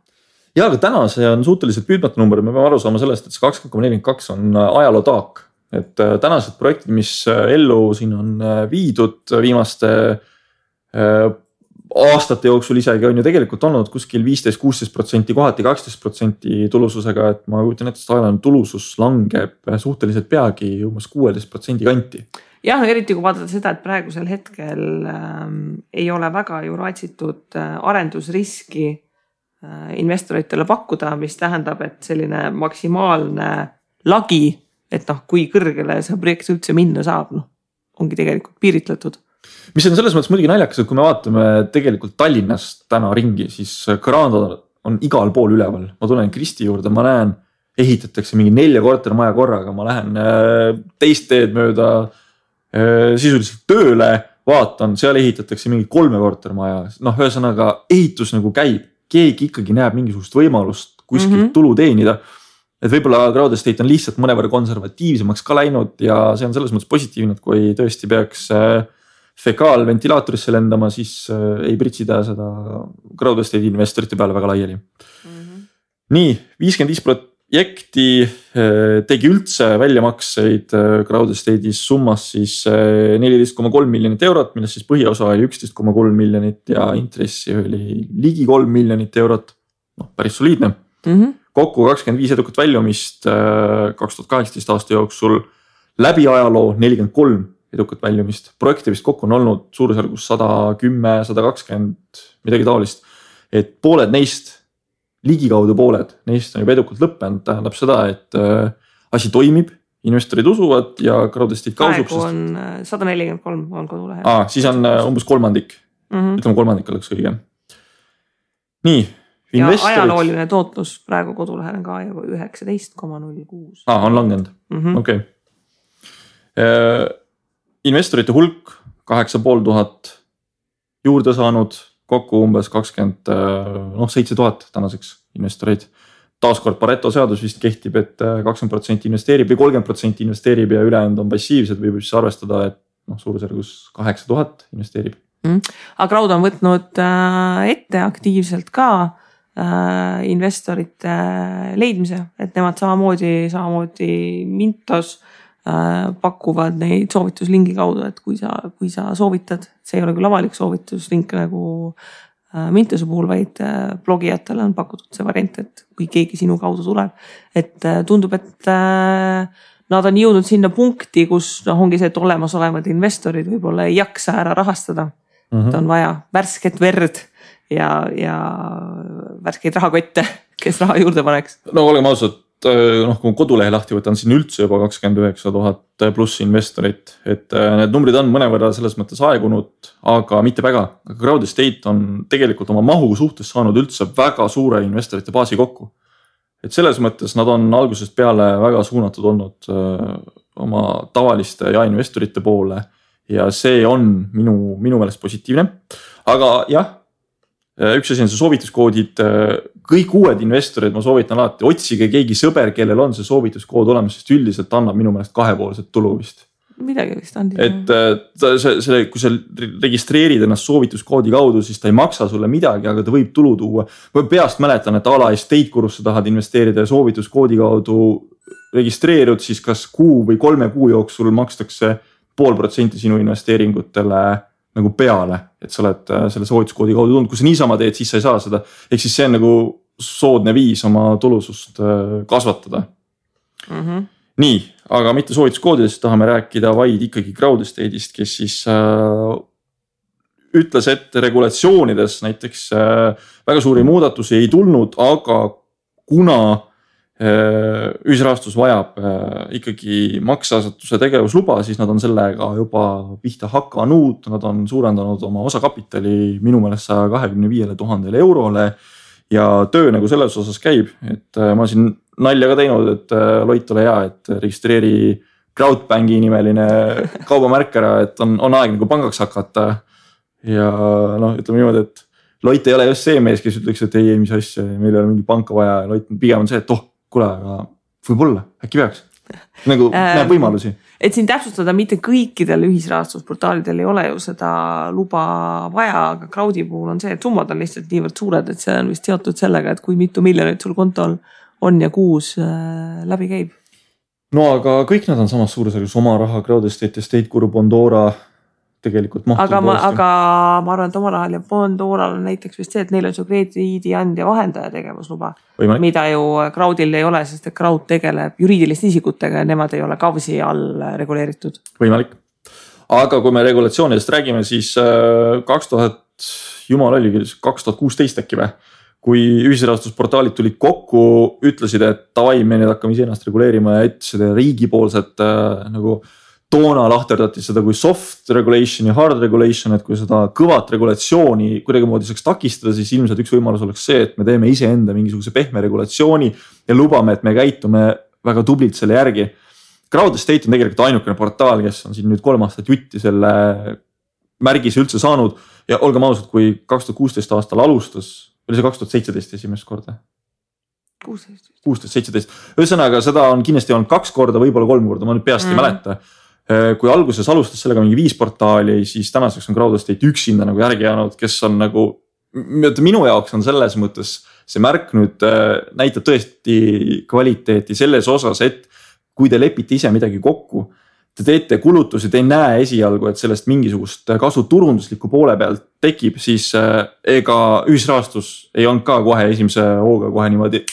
S2: Ja, aga täna see on suhteliselt püüdmatu number, me peame aru saama sellest, et see 20,42 on ajaloo taak. Et tänased projektid, mis ellu siin on viidud viimaste aastate jooksul isegi on ju tegelikult olnud kuskil 15-16%, kohati 12% tulususega, et ma kujutan ette, et ajalooline tulusus langeb suhteliselt peagi umbes 16% kanti.
S1: Jah, eriti kui vaadata seda, et praegusel hetkel ei ole väga ju raatsitud arendusriski investoritele pakkuda, mis tähendab, et selline maksimaalne lagi, et kui kõrgele see projekt üldse minna saab, ongi tegelikult piiritletud.
S2: Mis on selles mõttes muidugi naljakas, et kui me vaatame tegelikult Tallinnast täna ringi, siis Granda on igal pool üleval. Ma tulen Kristi juurde, ma näen, ehitatakse mingi 4 kortermaja korraga, ma lähen teist teed mööda sisuliselt tööle, vaatan, seal ehitatakse mingi 3 kortermaja, noh, ühesõnaga ehitus nagu käib, keegi ikkagi näeb mingisugust võimalust kuskilt tulu teenida. Et võib-olla Crowd Estate on lihtsalt mõnevõrra konservatiivsemaks ka läinud ja see on selles mõttes positiivne, et kui tõesti peaks fekaalventilaatorisse lendama, siis ei pritsida seda Crowd Estate investorite peale väga laiali. Nii, 55% tegi üldse väljamakseid Crowd Estate'is summas siis 14,3 miljonit eurot, millest siis põhiosa oli 11,3 miljonit ja intressi oli ligi 3 miljonit eurot. Noh, päris soliidne. Kokku 25 edukat väljumist 2018 aasta jooksul, läbi ajaloo 43 edukat väljumist. Projekte vist kokku on olnud suurusjärgus 110, 120, midagi taolist. Et pooled neist, ligikaudu pooled, neist on juba edukalt lõppenud, tähendab seda, et asi toimib, investorid usuvad ja Crowd Estate kausub.
S1: Praegu on 143 on kodulehe.
S2: Siis on umbes kolmandik, ütleme kolmandik oleks õige. Nii, investorid.
S1: Ja ajalooline tootlus praegu kodulehel on ka 19,06.
S2: On langenud, okei. Investorite hulk 8500 juurde saanud, kokku umbes 7,000 tänaseks investoreid. Taaskord Pareto seadus vist kehtib, et 20% investeerib või 30% investeerib ja ülejäänud on passiivsed, võib siis arvestada, et suurusjärgus 8000 investeerib.
S1: Aga Crowd on võtnud ette aktiivselt ka investorite leidmise, et nemad samamoodi Mintos pakuvad neid soovituslingi kaudu, et kui sa soovitad, see ei ole küll avalik soovituslink nagu Mintose puhul, vaid blogijatele on pakutud see variant, et kui keegi sinu kaudu tuleb, et tundub, et nad on jõudnud sinna punkti, kus ongi see, et olemasolevad investorid võib-olla ei jaksa ära rahastada. Et on vaja värsket verd ja värskeid rahakotte, kes raha juurde paneks.
S2: No oleme ausad, kui kodulehe lahti võtan, siin üldse juba 29 000 pluss investorit, et need numbrid on mõnevõrra selles mõttes aegunud, aga mitte väga. Aga Crowd Estate on tegelikult oma mahu suhtes saanud üldse väga suure investorite baasi kokku. Et selles mõttes nad on algusest peale väga suunatud olnud oma tavaliste ja investorite poole ja see on minu meelest positiivne. Aga jah, üks asi on see soovituskoodid, kõik uued investorid, ma soovitan alati, otsige keegi sõber, kellel on see soovituskood olemas, sest üldiselt annab minu meelest kahepoolset tulu vist.
S1: Midagi vist andi.
S2: Et kui sa registreerid ennast soovituskoodi kaudu, siis ta ei maksa sulle midagi, aga ta võib tulu tuua. Ma peast mäletan, et ala estate kurusse tahad investeerida ja soovituskoodi kaudu registreerud, siis kas kuu või 3 kuu jooksul makstakse 0,5% sinu investeeringutele nagu peale, et sa oled selle soovituskoodi kaudu tulnud, kui sa niisama teed, siis sa ei saa seda. Ehk siis see on nagu soodne viis oma tulusust kasvatada. Nii, aga mitte soovituskoodidest, tahame rääkida vaid ikkagi Crowd Estate'ist, kes siis ütles, et regulatsioonides näiteks väga suuri muudatusi ei tulnud, aga kuna ühisrahastus vajab ikkagi makseasutuse tegevusluba, siis nad on sellega juba pihta hakanud, nad on suurendanud oma osakapitali minu meelest 125 000 eurole ja töö nagu selles osas käib, et ma siin nalja ka teinud, et Loit ole hea, et registreeri Crowdbanki nimeline kaubamärk ära, et on aeg nagu pangaks hakata ja ütleme niimoodi, et Loit ei ole just see mees, kes ütleks, et ei, mis asja, meil ei ole mingi panka vaja ja Loit pigem on see, et kuule, aga võib-olla, äkki peaks. Nagu näeb võimalusi.
S1: Et siin täpsustada, mitte kõikidel ühisrahastusportaalidel ei ole ju seda luba vaja, aga Crowdi puhul on see, et summad on lihtsalt niivõrd suured, et see on vist seotud sellega, et kui mitu miljonit sul kontol on ja kuus läbi käib.
S2: No aga kõik nad on samas suurusjärgus oma raha, Crowd Estate, Estate Guru, Bondora tegelikult mahtud.
S1: Aga ma arvan, et oma rahal ja Bondoral on näiteks vist see, et neil on see krediidiandja vahendaja tegevusluba, mida ju Crowdil ei ole, sest et Crowd tegeleb juriidiliste isikutega ja nemad ei ole KAVSi all reguleeritud.
S2: Võimalik. Aga kui me regulatsioonidest räägime, siis 2016 äkki või? Kui ühisrahastusportaalid tulid kokku, ütlesid, et tavai, me nüüd hakkame ise ennast reguleerima ja et seda riigipoolset nagu toona lahterdati seda kui soft regulation ja hard regulation, et kui seda kõvat regulatsiooni kuidagimoodi saaks takistada, siis ilmselt üks võimalus oleks see, et me teeme iseenda mingisuguse pehme regulatsiooni ja lubame, et me käitume väga tublilt selle järgi. Crowd Estate on tegelikult ainukene portaal, kes on siin nüüd 3 aastat jutti selle märgise üldse saanud ja olgem ausad, kui 2016 aastal alustas, oli see 2017 esimest korda? 16-17. Ühesõnaga seda on kindlasti olnud 2 korda, võib-olla 3 korda, ma nüüd peast ei mäleta. Kui alguses alustas sellega mingi 5 portaali, siis tänaseks on Crowd Estate üksinda nagu järgi jäänud, kes on nagu, minu jaoks on selles mõttes see märk nüüd näitab tõesti kvaliteeti selles osas, et kui te lepite ise midagi kokku, te teete kulutusi, te ei näe esialgu, et sellest mingisugust kasu turundusliku poole pealt tekib, siis ega ühisrahastus ei olnud ka kohe esimese hooga kohe niimoodi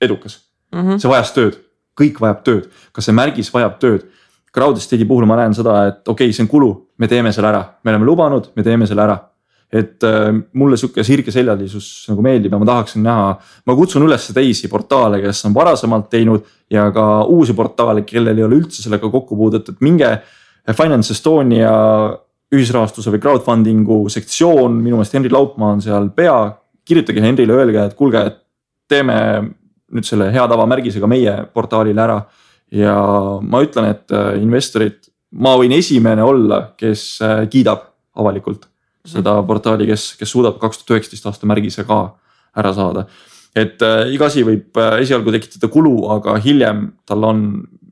S2: edukas. See vajas tööd, kõik vajab tööd, kas see märgis vajab tööd. Crowd Estate'i puhul ma näen seda, et okei, see on kulu, me teeme selle ära, me oleme lubanud, me teeme selle ära. Et mulle siuke sirge seljalisus nagu meeldib ja ma tahaksin näha, ma kutsun üles teisi portaale, kes on varasemalt teinud ja ka uusi portaale, kellel ei ole üldse sellega kokkupuudet, et minge Finance Estonia ühisrahastuse või crowdfundingu sektsioon, minu meelest Henri Laupmaa on seal pea, kirjutage Henrile, öelge, et kuulge, et teeme nüüd selle hea tava märgisega meie portaalile ära ja ma ütlen, et investorid, ma võin esimene olla, kes kiidab avalikult seda portaali, kes suudab 2019 aasta märgise ka ära saada. Et iga asi võib esialgu tekitada kulu, aga hiljem tal on,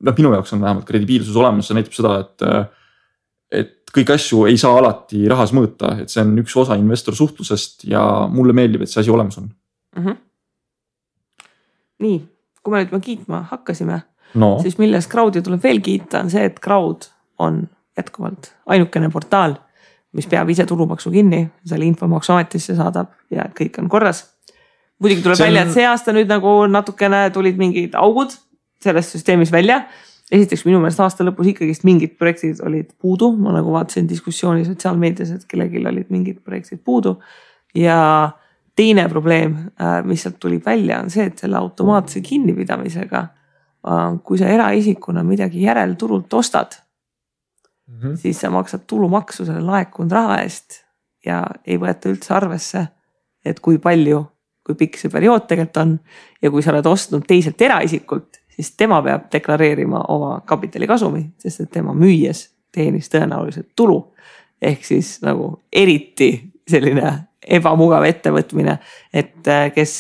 S2: minu jaoks on vähemalt kredibiilsus olemas, see näitab seda, et kõik asju ei saa alati rahas mõõta, et see on üks osa investor suhtlusest ja mulle meeldib, et see asi olemas on.
S1: Nii, kui me nüüd kiitma hakkasime, siis milles Crowdi tuleb veel kiita on see, et Crowd on jätkuvalt ainukene portaal, mis peab ise tulumaksu kinni, selle infomaksuametisse saadab ja kõik on korras. Muidugi tuleb välja, et see aasta nüüd nagu natukene tulid mingid augud selles süsteemis välja. Esiteks minu meelest aasta lõpus ikkagist mingid projektid olid puudu. Ma nagu vaatasin diskussiooni sotsiaalmeedias, et kellelgi olid mingid projektid puudu. Ja teine probleem, mis sealt tuli välja, on see, et selle automaatse kinnipidamisega, kui sa eraisikuna midagi järelturult ostad, siis sa maksad tulumaksu selle laekunud raha eest ja ei võeta üldse arvesse, et kui palju, kui pikk see periood tegelikult on ja kui sa oled ostnud teiselt eraisikult, siis tema peab deklareerima oma kapitalikasumi, sest et tema müües teenis tõenäoliselt tulu. Ehk siis nagu eriti selline ebamugav ettevõtmine, et kes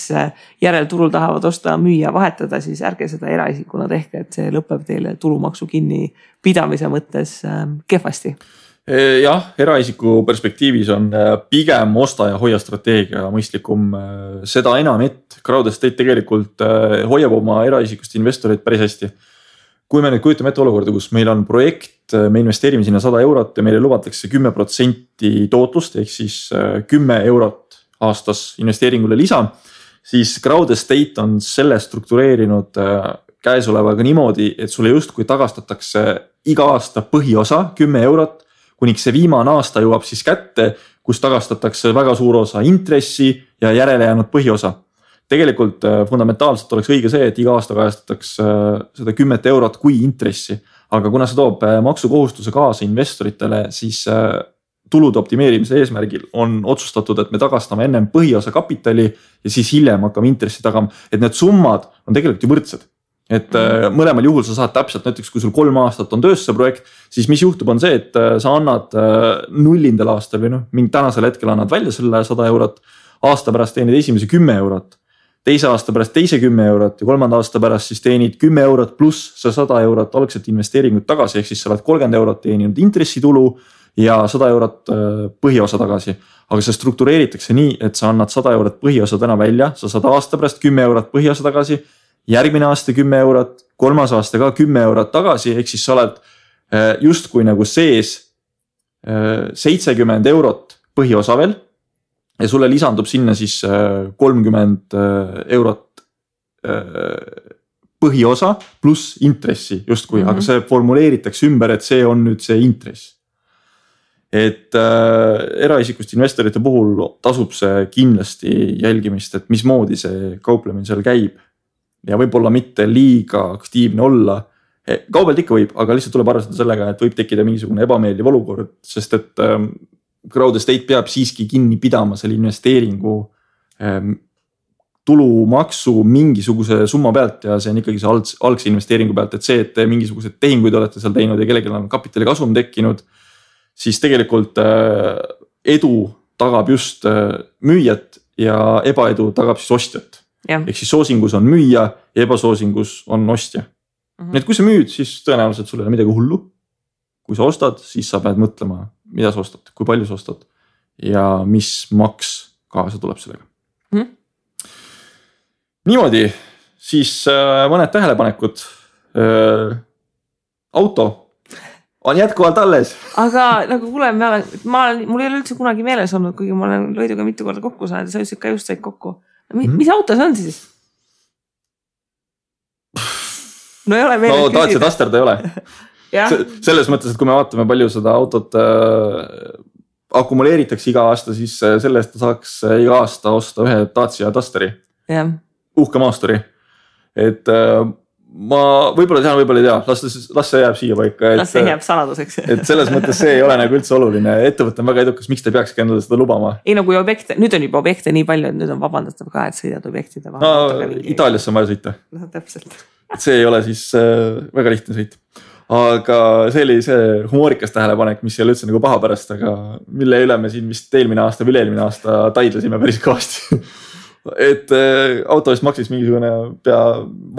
S1: järelturul tahavad osta, müüa, vahetada, siis ärge seda eraisikuna tehke, et see lõpeb teile tulumaksu kinni pidamise mõttes kehvasti.
S2: Jah, eraisiku perspektiivis on pigem osta ja hoia strateegia mõistlikum. Seda enam, et Crowd Estate tegelikult hoiab oma eraisikust investoreid päris hästi. Kui me nüüd kujutame ette olukorda, kus meil on projekt, me investeerime sinna 100 eurot ja meile lubatakse 10% tootlust, ehk siis 10 eurot aastas investeeringule lisa, siis Crowd Estate on selle struktureerinud käesolevaga niimoodi, et sulle justkui tagastatakse iga aasta põhiosa 10 eurot, kuniks see viimane aasta jõuab siis kätte, kus tagastatakse väga suur osa intressi ja järele jäänud põhiosa. Tegelikult fundamentaalselt oleks õige see, et iga aasta kajastatakse seda 10 eurot kui intressi, aga kuna see toob maksukohustuse kaasa investoritele, siis tulude optimeerimise eesmärgil on otsustatud, et me tagastame ennem põhiosa kapitali ja siis hiljem hakkame intressi tagama, et need summad on tegelikult ju võrdsed. Et mõlemal juhul sa saad täpselt, näiteks kui sul 3 aastat on töös see projekt, siis mis juhtub on see, et sa annad nullindal aastal või mingi tänasel hetkel annad välja selle 100 eurot, aasta pärast teenid esimese 10 eurot, teise aasta pärast teise 10 eurot ja 3. aasta pärast siis teenid 10 eurot pluss see 100 eurot algselt investeeringut tagasi, ehk siis sa oled 30 eurot teeninud intressitulu ja 100 eurot põhiosa tagasi. Aga see struktureeritakse nii, et sa annad 100 eurot põhiosa täna välja, sa saad aasta pärast 10 eurot põhiosa tagasi, järgmine aasta 10 eurot, 3. aasta ka 10 eurot tagasi, ehk siis sa oled justkui nagu sees 70 eurot põhiosa veel ja sulle lisandub sinna siis 30 eurot põhiosa pluss intressi justkui, aga see formuleeritakse ümber, et see on nüüd see intress. Et eraisikust investorite puhul tasub see kindlasti jälgimist, et mismoodi see kauplemine seal käib ja võib-olla mitte liiga aktiivne olla. Kaubelt ikka võib, aga lihtsalt tuleb arvestada sellega, et võib tekkida mingisugune ebameeldiv olukord, sest et Crowd Estate peab siiski kinni pidama selle investeeringu tulumaksu mingisuguse summa pealt ja see on ikkagi see algse investeeringu pealt, et see, et te mingisugused tehinguid olete seal teinud ja kellelgi on kapitali kasum tekkinud, siis tegelikult edu tagab just müüjat ja ebaedu tagab siis ostjat. Ehk siis soosingus on müüja ja ebasoosingus on ostja. Nii et kui sa müüd, siis tõenäoliselt sul ei ole midagi hullu. Kui sa ostad, siis sa pead mõtlema, mida sa ostad, kui palju sa ostad ja mis maks kaasa tuleb sellega. Niimoodi, siis mõned tähelepanekud. Auto on jätkuvalt alles.
S1: Aga nagu kuule, mul ei ole üldse kunagi meeles olnud, kuigi ma olen Loiduga mitu korda kokku saanud ja sa ütlesid ka just said kokku. Mis auto see on siis? No ei ole meeles küsida.
S2: Dacia Duster ta ei ole. Selles mõttes, et kui me vaatame palju seda autot akumuleeritakse iga aasta, siis selle eest saaks iga aasta osta ühe Dacia Dusteri. Uhke maasturi. Et ma võib-olla tean, võib-olla ei tea, las see jääb siia paika.
S1: Las see jääb saladuseks.
S2: Et selles mõttes see ei ole nagu üldse oluline. Ettevõte on väga edukas, miks te peakski endale seda lubama?
S1: Ei no kui objekte, nüüd on juba objekte nii palju, et nüüd on vabandatav ka, et sõidad objektide
S2: vahel. No Itaaliasse on vaja sõita.
S1: No täpselt.
S2: See ei ole siis väga lihtne sõit. Aga see oli see humoorikas tähelepanek, mis ei ole üldse nagu paha pärast, aga mille üle me siin vist eelmine aasta või eelmine aasta taidlasime päris kõvasti. Et auto eest maksis mingisugune pea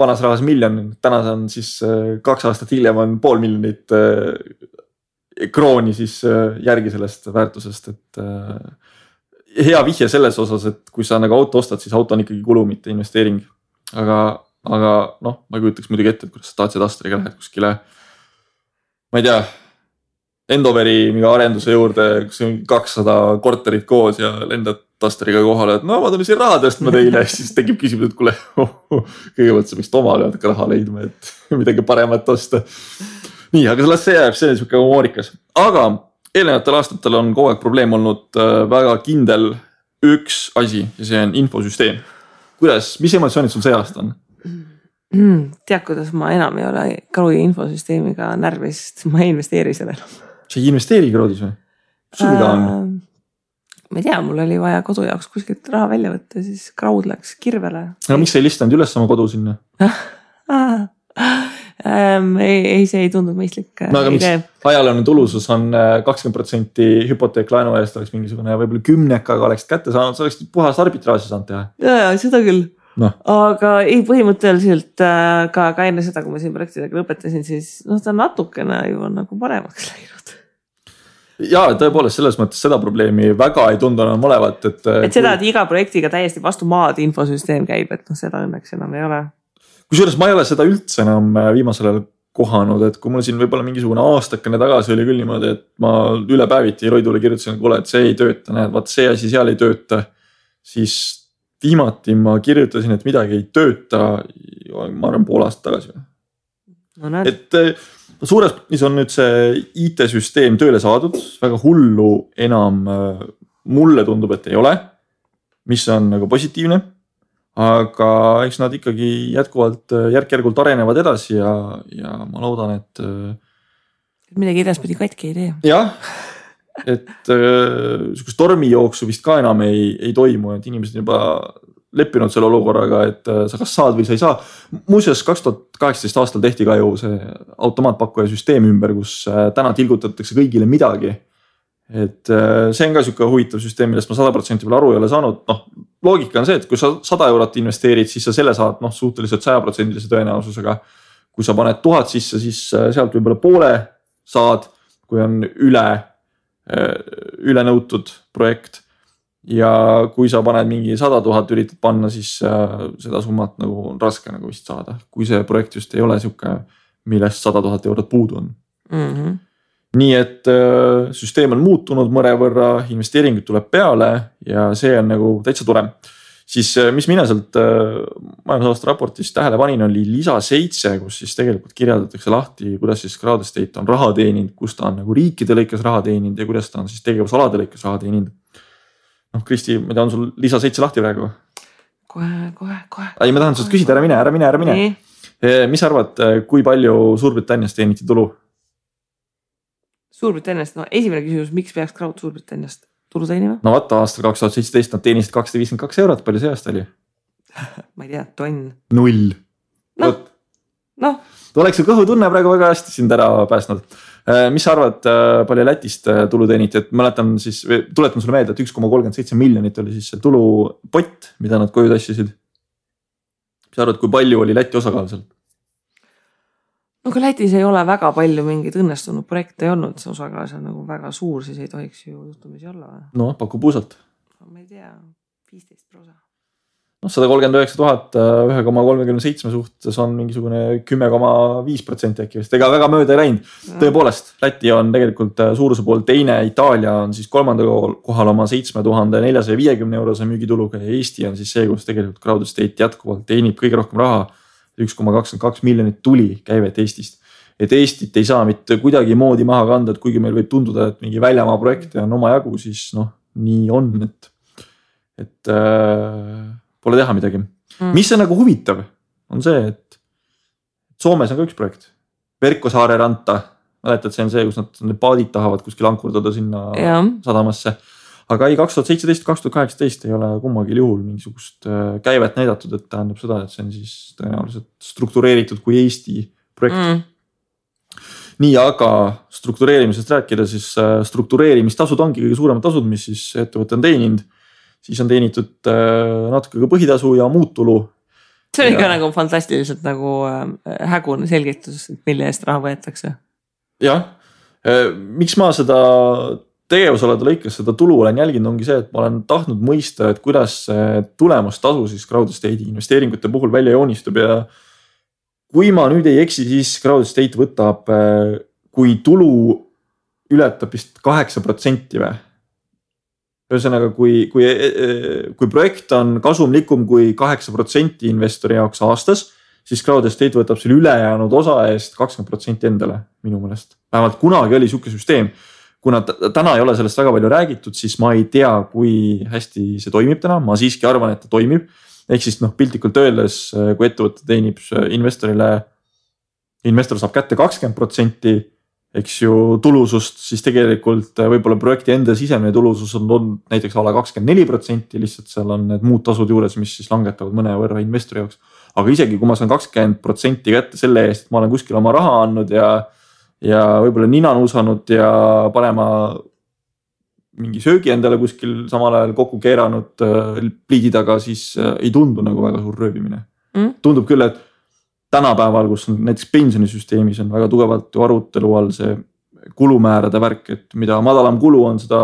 S2: vanas rahas 1 miljon, täna on siis 2 aastat hiljem on 500 000 krooni siis järgi sellest väärtusest, et hea vihje selles osas, et kui sa nagu auto ostad, siis auto on ikkagi kulu, mitte investeering. Aga noh, ma ei kujutaks muidugi ette, et kuidas Dacia Dusteriga lähed kuskile, ma ei tea, Endoveri mingi arenduse juurde, kus on 200 korterit koos ja lendad Dusteriga kohale, et no ma tulin siin raha tõstma teile, siis tekib küsimus, et kuule, kõigepealt sa võiks omale raha leidma, et midagi paremat osta. Nii, aga las see jääb, see on siuke humoorikas. Aga eelnevatel aastatel on kogu aeg probleem olnud väga kindel üks asi ja see on infosüsteem. Kuidas, mis emotsioonid sul see aasta on?
S1: Tead, kuidas ma enam ei ole Krodi infosüsteemiga närvis, sest ma ei investeeri selle enam.
S2: Sa ei investeeri Krodis või? Sul mida on?
S1: Ma ei tea, mul oli vaja kodu jaoks kuskilt raha välja võtta, siis Krod läks kirvele.
S2: No miks sa ei listanud üles oma kodu sinna?
S1: Ei, see ei tundunud mõistlik.
S2: No aga miks ajalooline tulusus on 20% hüpoteeklaenu eest oleks mingisugune võib-olla 10-ga oleks kätte saanud, sa oleks puhas arbitraaži saanud teha.
S1: Ja, seda küll. No. Aga ei põhimõtteliselt ka enne seda, kui ma siin projektidega lõpetasin, siis ta natukene ju on nagu paremaks läinud.
S2: Ja tõepoolest selles mõttes seda probleemi väga ei tundu enam olevat.
S1: Et seda, et iga projektiga täiesti vastu maad infosüsteem käib, et seda õnneks enam ei ole.
S2: Kusjuures ma ei ole seda üldse enam viimasel ajal kohanud, et kui mul siin võib-olla mingisugune aastakene tagasi oli küll niimoodi, et ma üle päeviti Roidule kirjutasin, kuule, et see ei tööta, näed, vaat see asi seal ei tööta, siis viimati ma kirjutasin, et midagi ei tööta, ma arvan pool aastat tagasi.
S1: No,
S2: et suures plaanis on nüüd see IT-süsteem tööle saadud, väga hullu enam mulle tundub, et ei ole, mis on nagu positiivne, aga eks nad ikkagi jätkuvalt järk-järgult arenevad edasi ja ma loodan, et
S1: midagi edaspidi katki ei tee.
S2: Jah, et sukust tormijooksu vist ka enam ei toimu, et inimesed juba leppinud selle olukorraga, et sa kas saad või sa ei saa. Muuseas 2018 aastal tehti ka ju see automaatpakkuja süsteem ümber, kus täna tilgutatakse kõigile midagi. Et see on ka siuke huvitav süsteem, millest ma 100% veel aru ei ole saanud. Loogika on see, et kui sa 100 eurot investeerid, siis sa selle saad suhteliselt 100% tõenäosusega. Kui sa paned 1000 sisse, siis sealt võib-olla poole saad, kui on üle nõutud projekt. Ja kui sa paned mingi 100 000 üritad panna, siis seda summat nagu on raske nagu vist saada. Kui see projekt just ei ole siuke, millest 100 000 eurot puudu on.
S1: Mm-hmm.
S2: Nii et süsteem on muutunud mõrevõrra, investeeringud tuleb peale ja see on nagu täitsa tore. Siis mis mina sealt majandusaasta raportist tähele panin, oli lisa 7, kus siis tegelikult kirjeldatakse lahti, kuidas siis Crowd Estate on raha teeninud, kus ta on nagu riikide lõikes raha teeninud ja kuidas ta on siis tegevusalade lõikes raha teeninud. Kristi, ma tean sul lisa 7 lahti praegu?
S1: Kohe.
S2: Ei, ma tahan sult küsida, ära mine. Mis arvad, kui palju Suurbritanniast teeniti tulu?
S1: Suurbritanniast, esimene küsimus, miks peaks Crowd Suurbritanniast tulu teenima?
S2: No vaata, aastal 2017 nad teenisid 252 eurot, palju see aasta oli?
S1: ma ei tea, tonn.
S2: 0.
S1: Noh.
S2: Oleks su kõhutunne praegu väga hästi sind ära päästnud. Mis sa arvad, palju Lätist tulu teeniti, et mäletan siis, tuletan sulle meelde, et 1,37 miljonit oli siis see tulupott, mida nad koju tassisid. Mis sa arvad, kui palju oli Läti osakaal seal?
S1: No kui Lätis ei ole väga palju mingeid õnnestunud projekte ei olnud, see osakaal on nagu väga suur, siis ei tohiks ju juhtumisi olla.
S2: No, paku puusalt.
S1: Ma ei tea, 15%.
S2: No, 139 000 1,37 suhtes on mingisugune 10,5% äkki vist. Ega väga mööda ei läinud. Tõepoolest, Läti on tegelikult suuruse pool teine, Itaalia on siis 3. kohal oma 7450 eurose müügituluga ja Eesti on siis see, kus tegelikult Crowd Estate jätkuvalt teenib kõige rohkem raha. 1,22 miljonit tuli käivet Eestist. Et Eestit ei saa mitte kuidagi moodi maha kanda, et kuigi meil võib tunduda, et mingi väljamaa projekte on oma jagu, siis nii on, et pole teha midagi. Mis on nagu huvitav, on see, et Soomes on ka üks projekt. Verkkosaare ranta. Mäletad, see on see, kus nad paadid tahavad kuskil ankurdada sinna sadamasse. Aga ei, 2017-2018 ei ole kummagil juhul mingisugust käivet näidatud, et tähendab seda, et see on siis tõenäoliselt struktureeritud kui Eesti projekt. Nii, aga struktureerimisest rääkida, siis struktureerimistasud ongi kõige suuremad tasud, mis siis ettevõte on teeninud. Siis on teenitud natuke ka põhitasu ja muud tulu.
S1: See on ikka nagu fantastiliselt nagu hägune selgitus, mille eest raha võetakse.
S2: Jah, miks ma seda tegevusalade lõikes seda tulu olen jälginud, ongi see, et ma olen tahtnud mõista, et kuidas tulemustasu siis Crowd Estate investeeringute puhul välja joonistub ja kui ma nüüd ei eksi, siis Crowd Estate võtab, kui tulu ületab vist 8% või. Ühesõnaga, kui projekt on kasumlikum kui 8% investori jaoks aastas, siis Crowd Estate võtab selle ülejäänud osa eest 20% endale minu meelest. Vähemalt kunagi oli siuke süsteem. Kuna täna ei ole sellest väga palju räägitud, siis ma ei tea, kui hästi see toimib täna. Ma siiski arvan, et ta toimib. Ehk siis piltlikult öeldes, kui ettevõte teenib investorile, investor saab kätte 20%, eks ju tulusust, siis tegelikult võib-olla projekti enda sisemine tulusus on näiteks ala 24%, lihtsalt seal on need muud tasud juures, mis siis langetavad mõne võrra investori jaoks. Aga isegi kui ma saan 20% kätte selle eest, et ma olen kuskil oma raha andnud ja võib-olla nina nuusanud ja panema mingi söögi endale kuskil samal ajal kokku keeranud pliidi taga, siis ei tundu nagu väga suur röövimine. Tundub küll, et tänapäeval, kus on näiteks pensionisüsteemis on väga tugevalt arutelu all see kulumäärade värk, et mida madalam kulu on, seda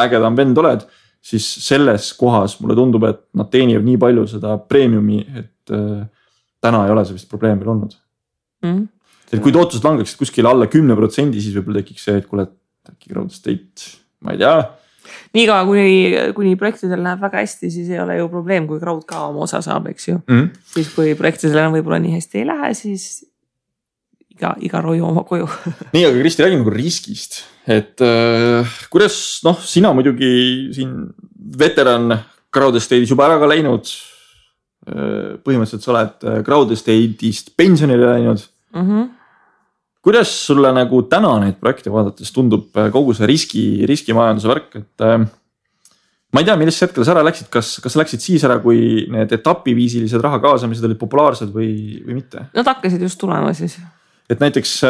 S2: ägedam vend oled, siis selles kohas mulle tundub, et nad teenivad nii palju seda preemiumi, et täna ei ole see vist probleem veel olnud. Et kui tootused langeksid kuskil alla 10%, siis võib-olla tekiks see, et kuule, äkki Crowd Estate, ma ei tea.
S1: Niiga, kuni projektidel läheb väga hästi, siis ei ole ju probleem, kui Crowd ka oma osa saab, eks ju. Siis kui projektidel võib-olla nii hästi ei lähe, siis iga roju oma koju.
S2: Nii, aga Kristi, räägime nagu riskist. Et kuidas, sina muidugi siin veteran Crowd Estate'is juba ära ka läinud. Põhimõtteliselt sa oled Crowd Estate'ist pensionile läinud. Kuidas sulle nagu täna neid projekte vaadates tundub kogu see riskimajanduse värk, et ma ei tea, millest hetkel sa ära läksid, kas läksid siis ära, kui need etapiviisilised raha kaasamised olid populaarsed või mitte?
S1: Nad hakkasid just tulema siis.
S2: Et näiteks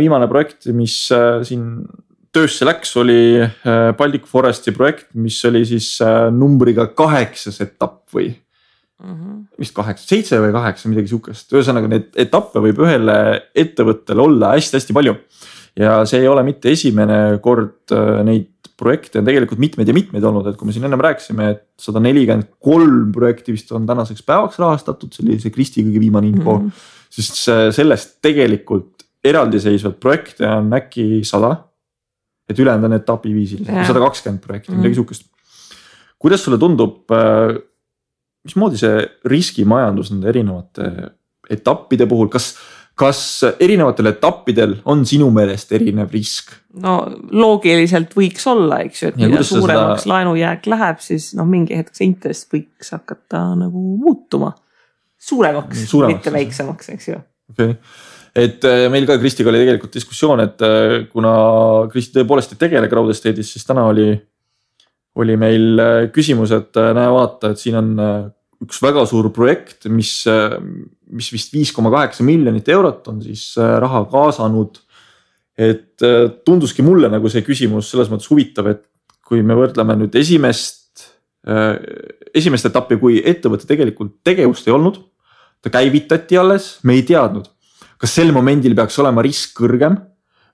S2: viimane projekt, mis siin töösse läks, oli Baltic Foresti projekt, mis oli siis numbriga 8 etapp või vist 7 või 8, midagi sihukest. Ühesõnaga need etappe võib ühele ettevõttele olla hästi-hästi palju. Ja see ei ole mitte esimene kord, neid projekte on tegelikult mitmeid ja mitmeid olnud, et kui me siin ennem rääkisime, et 143 projekti vist on tänaseks päevaks rahastatud, see oli see Kristi kõige viimane info, siis sellest tegelikult eraldiseisvad projekte on äkki 100, et ülejäänud on etapiviisilised, 120 projekti, midagi sihukest. Kuidas sulle tundub, mismoodi see riskimajandus nende erinevate etappide puhul, kas erinevatel etappidel on sinu meelest erinev risk?
S1: No loogiliselt võiks olla, eks ju, et mida suuremaks laenujääk läheb, siis mingi hetk see intress võiks hakata nagu muutuma suuremaks, mitte väiksemaks, eks ju.
S2: Okay. Et meil ka Kristiga oli tegelikult diskussioon, et kuna Kristi tõepoolest ei tegele Crowd Estate'is, siis täna oli meil küsimus, et näe vaata, et siin on üks väga suur projekt, mis vist 5,8 miljonit eurot on siis raha kaasanud. Et tunduski mulle nagu see küsimus selles mõttes huvitav, et kui me võrdleme nüüd esimest etappi, kui ettevõtte tegelikult tegevust ei olnud, ta käivitati alles, me ei teadnud, kas sel momendil peaks olema risk kõrgem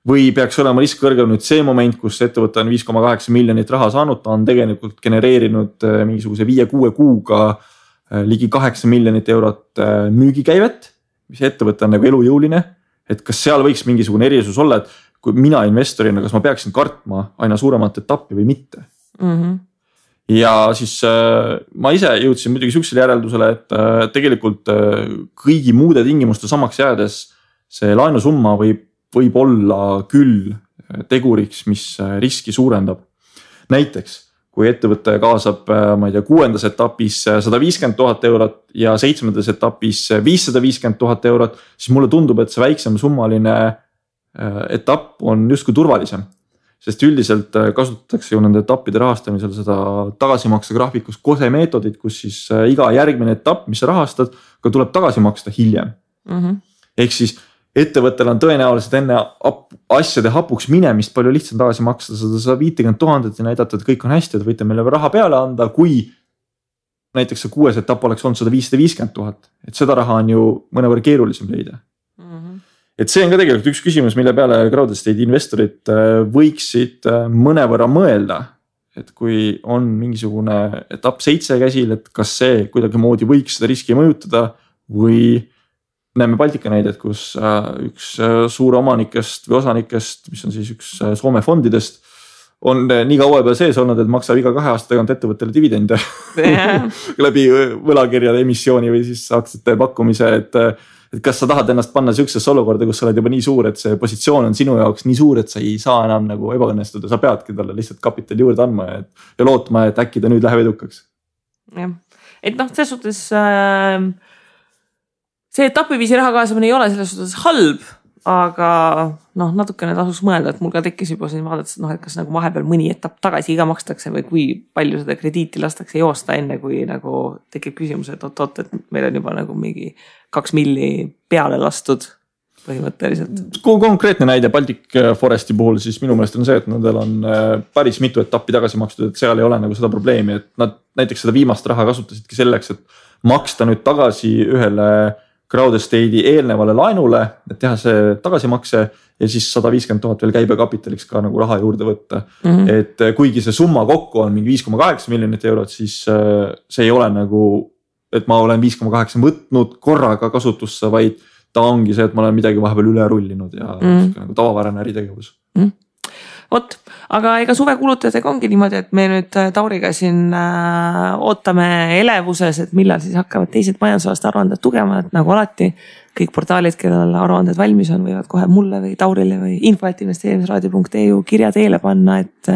S2: või peaks olema risk kõrgem nüüd see moment, kus ettevõte on 5,8 miljonit raha saanud, ta on tegelikult genereerinud mingisuguse 5-6 kuuga ligi 8 miljonit eurot müügikäivet, mis ettevõte on nagu elujõuline, et kas seal võiks mingisugune erisus olla, et kui mina investorina, kas ma peaksin kartma aina suuremat etappi või mitte. Ja siis ma ise jõudsin muidugi sihukesele järeldusele, et tegelikult kõigi muude tingimuste samaks jäädes see laenusumma võib olla küll teguriks, mis riski suurendab. Näiteks, kui ettevõte kaasab, ma ei tea, 6. etapis 150 000 eurot ja 7. etapis 550 000 eurot, siis mulle tundub, et see väiksem summaline etapp on justkui turvalisem. Sest üldiselt kasutatakse ju nende etappide rahastamisel seda tagasimakse graafikus KOSE meetodit, kus siis iga järgmine etapp, mis sa rahastad, ka tuleb tagasi maksta hiljem. Ehk siis ettevõttel on tõenäoliselt enne asjade hapuks minemist palju lihtsam tagasi maksta 150 000 ja näidata, et kõik on hästi, et võite meile raha peale anda, kui näiteks see 6. etapp oleks olnud 150 000. Et seda raha on ju mõnevõrra keerulisem leida. Et see on ka tegelikult üks küsimus, mille peale crowd-estate investorid võiksid mõnevõrra mõelda. Et kui on mingisugune etapp 7 käsil, et kas see kuidagi moodi võiks seda riski mõjutada või näeme Baltika näidet, kus üks suur omanikest või osanikest, mis on siis üks Soome fondidest, on nii kaua juba sees olnud, et maksab iga 2 aasta tagant ettevõttele dividende läbi võlakirjade emissiooni või siis aktsiate pakkumise, et kas sa tahad ennast panna sihukesesse olukorda, kus sa oled juba nii suur, et see positsioon on sinu jaoks nii suur, et sa ei saa enam nagu ebaõnnestuda, sa peadki talle lihtsalt kapitali juurde andma ja lootma, et äkki ta nüüd läheb edukaks.
S1: Jah, et selles suhtes see etapiviisi raha kaasamine ei ole selles suhtes halb, aga natukene tasuks mõelda, et mul ka tekkis juba siin vaadates, et kas nagu vahepeal mõni etapp tagasi iga makstakse või kui palju seda krediiti lastakse joosta enne, kui nagu tekib küsimus, et oot, et meil on juba nagu mingi 2 milli peale lastud põhimõtteliselt.
S2: Konkreetne näide Baltic Foresti puhul siis minu meelest on see, et nendel on päris mitu etappi tagasi makstud, et seal ei ole nagu seda probleemi, et nad näiteks seda viimast raha kasutasidki selleks, et maksta nüüd tagasi ühele crowd-estate'i eelnevale laenule, et teha see tagasimakse ja siis 150 000 veel käibekapitaliks ka nagu raha juurde võtta. Et kuigi see summa kokku on mingi 5,8 miljonit eurot, siis see ei ole nagu, et ma olen 5,8 võtnud korraga kasutusse, vaid ta ongi see, et ma olen midagi vahepeal üle rullinud ja nagu tavapärane äritegevus.
S1: Vot, aga ega suvekulutajatega ongi niimoodi, et me nüüd Tauriga siin ootame elevuses, et millal siis hakkavad teised majandusaasta aruanded tugema, et nagu alati kõik portaalid, kellel aruanded valmis on, võivad kohe mulle või Taurile või info@investeerimisraadio.eu kirja teele panna, et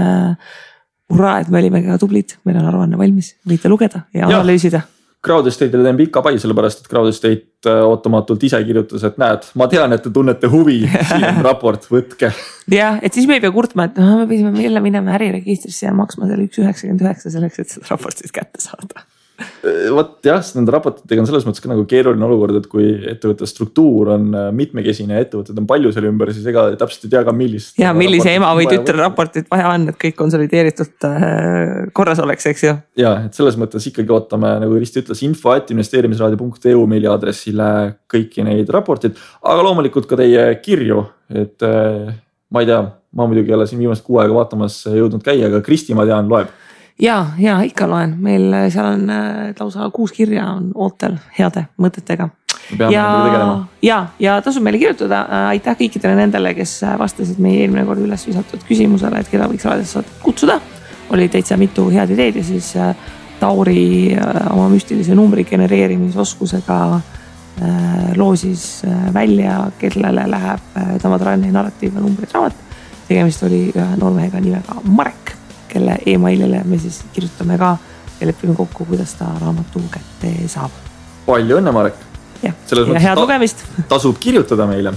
S1: hurraa, et me olime ka tublid, meil on aruanne valmis, võite lugeda ja analüüsida.
S2: crowd-estate'ile teen pika pai, sellepärast et crowd-estate ootamatult ise kirjutas, et näed, ma tean, et te tunnete huvi, siin on raport, võtke.
S1: Jah, et siis me ei pea kurtma, et me pidime jälle minema äriregistrisse ja maksma selle 1,99 selleks, et seda raportit kätte saada.
S2: Vot jah, nende raportitega on selles mõttes ka nagu keeruline olukord, et kui ettevõtte struktuur on mitmekesine ja ettevõtted on palju selle ümber, siis ega täpselt ei tea ka millist.
S1: Ja millise ema või tütre raportit vaja on, et kõik konsolideeritud korras oleks, eks ju.
S2: Ja, et selles mõttes ikkagi ootame, nagu Kristi ütles, info@investeerimisraadio.eu meili aadressile kõiki neid raportid, aga loomulikult ka teie kirju, et ma ei tea, ma muidugi ei ole siin viimast 6 aega vaatamas jõudnud käia, aga Kristi, ma tean, loeb.
S1: Ja ikka loen, meil seal on lausa 6 kirja on ootel heade mõtetega. Ja tasub meile kirjutada, aitäh kõikidele nendele, kes vastasid meie eelmine kord üles visatud küsimusele, et keda võiks raadiosse kutsuda. Oli täitsa mitu head ideed ja siis Tauri oma müstilise numbri genereerimisoskusega loosis välja, kellele läheb Tamatranni narratiiv ja numbrid raamat. Tegemist oli ühe noormehega nimega Marek, kelle emailile me siis kirjutame ka ja lepime kokku, kuidas ta raamatu kätte saab.
S2: Palju õnne, Marek!
S1: Ja head lugemist!
S2: Tasub kirjutada meile.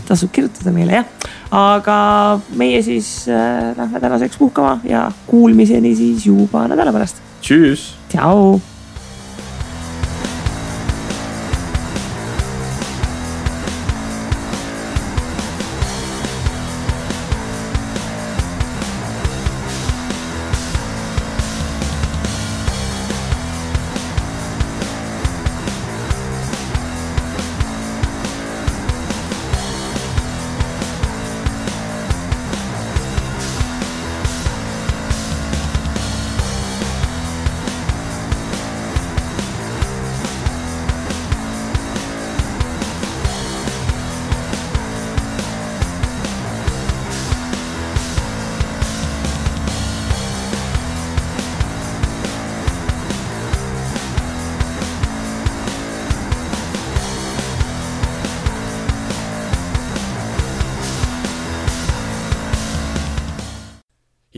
S1: Jah. Aga meie siis lähme tänaseks puhkama ja kuulmiseni siis juba nädala pärast.
S2: Tšüss!
S1: Tšau!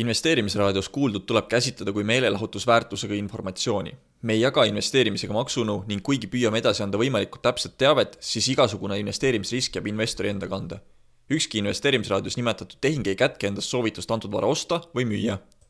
S3: Investeerimisraadios kuuldud tuleb käsitleda kui meelelahutusväärtusega informatsiooni. Me ei jaga investeerimisega maksunõu ning kuigi püüame edasi anda võimalikult täpset teavet, siis igasugune investeerimisrisk jääb investori enda kanda. Ükski investeerimisraadios nimetatud tehing ei kätke endast soovitust antud vara osta või müüa.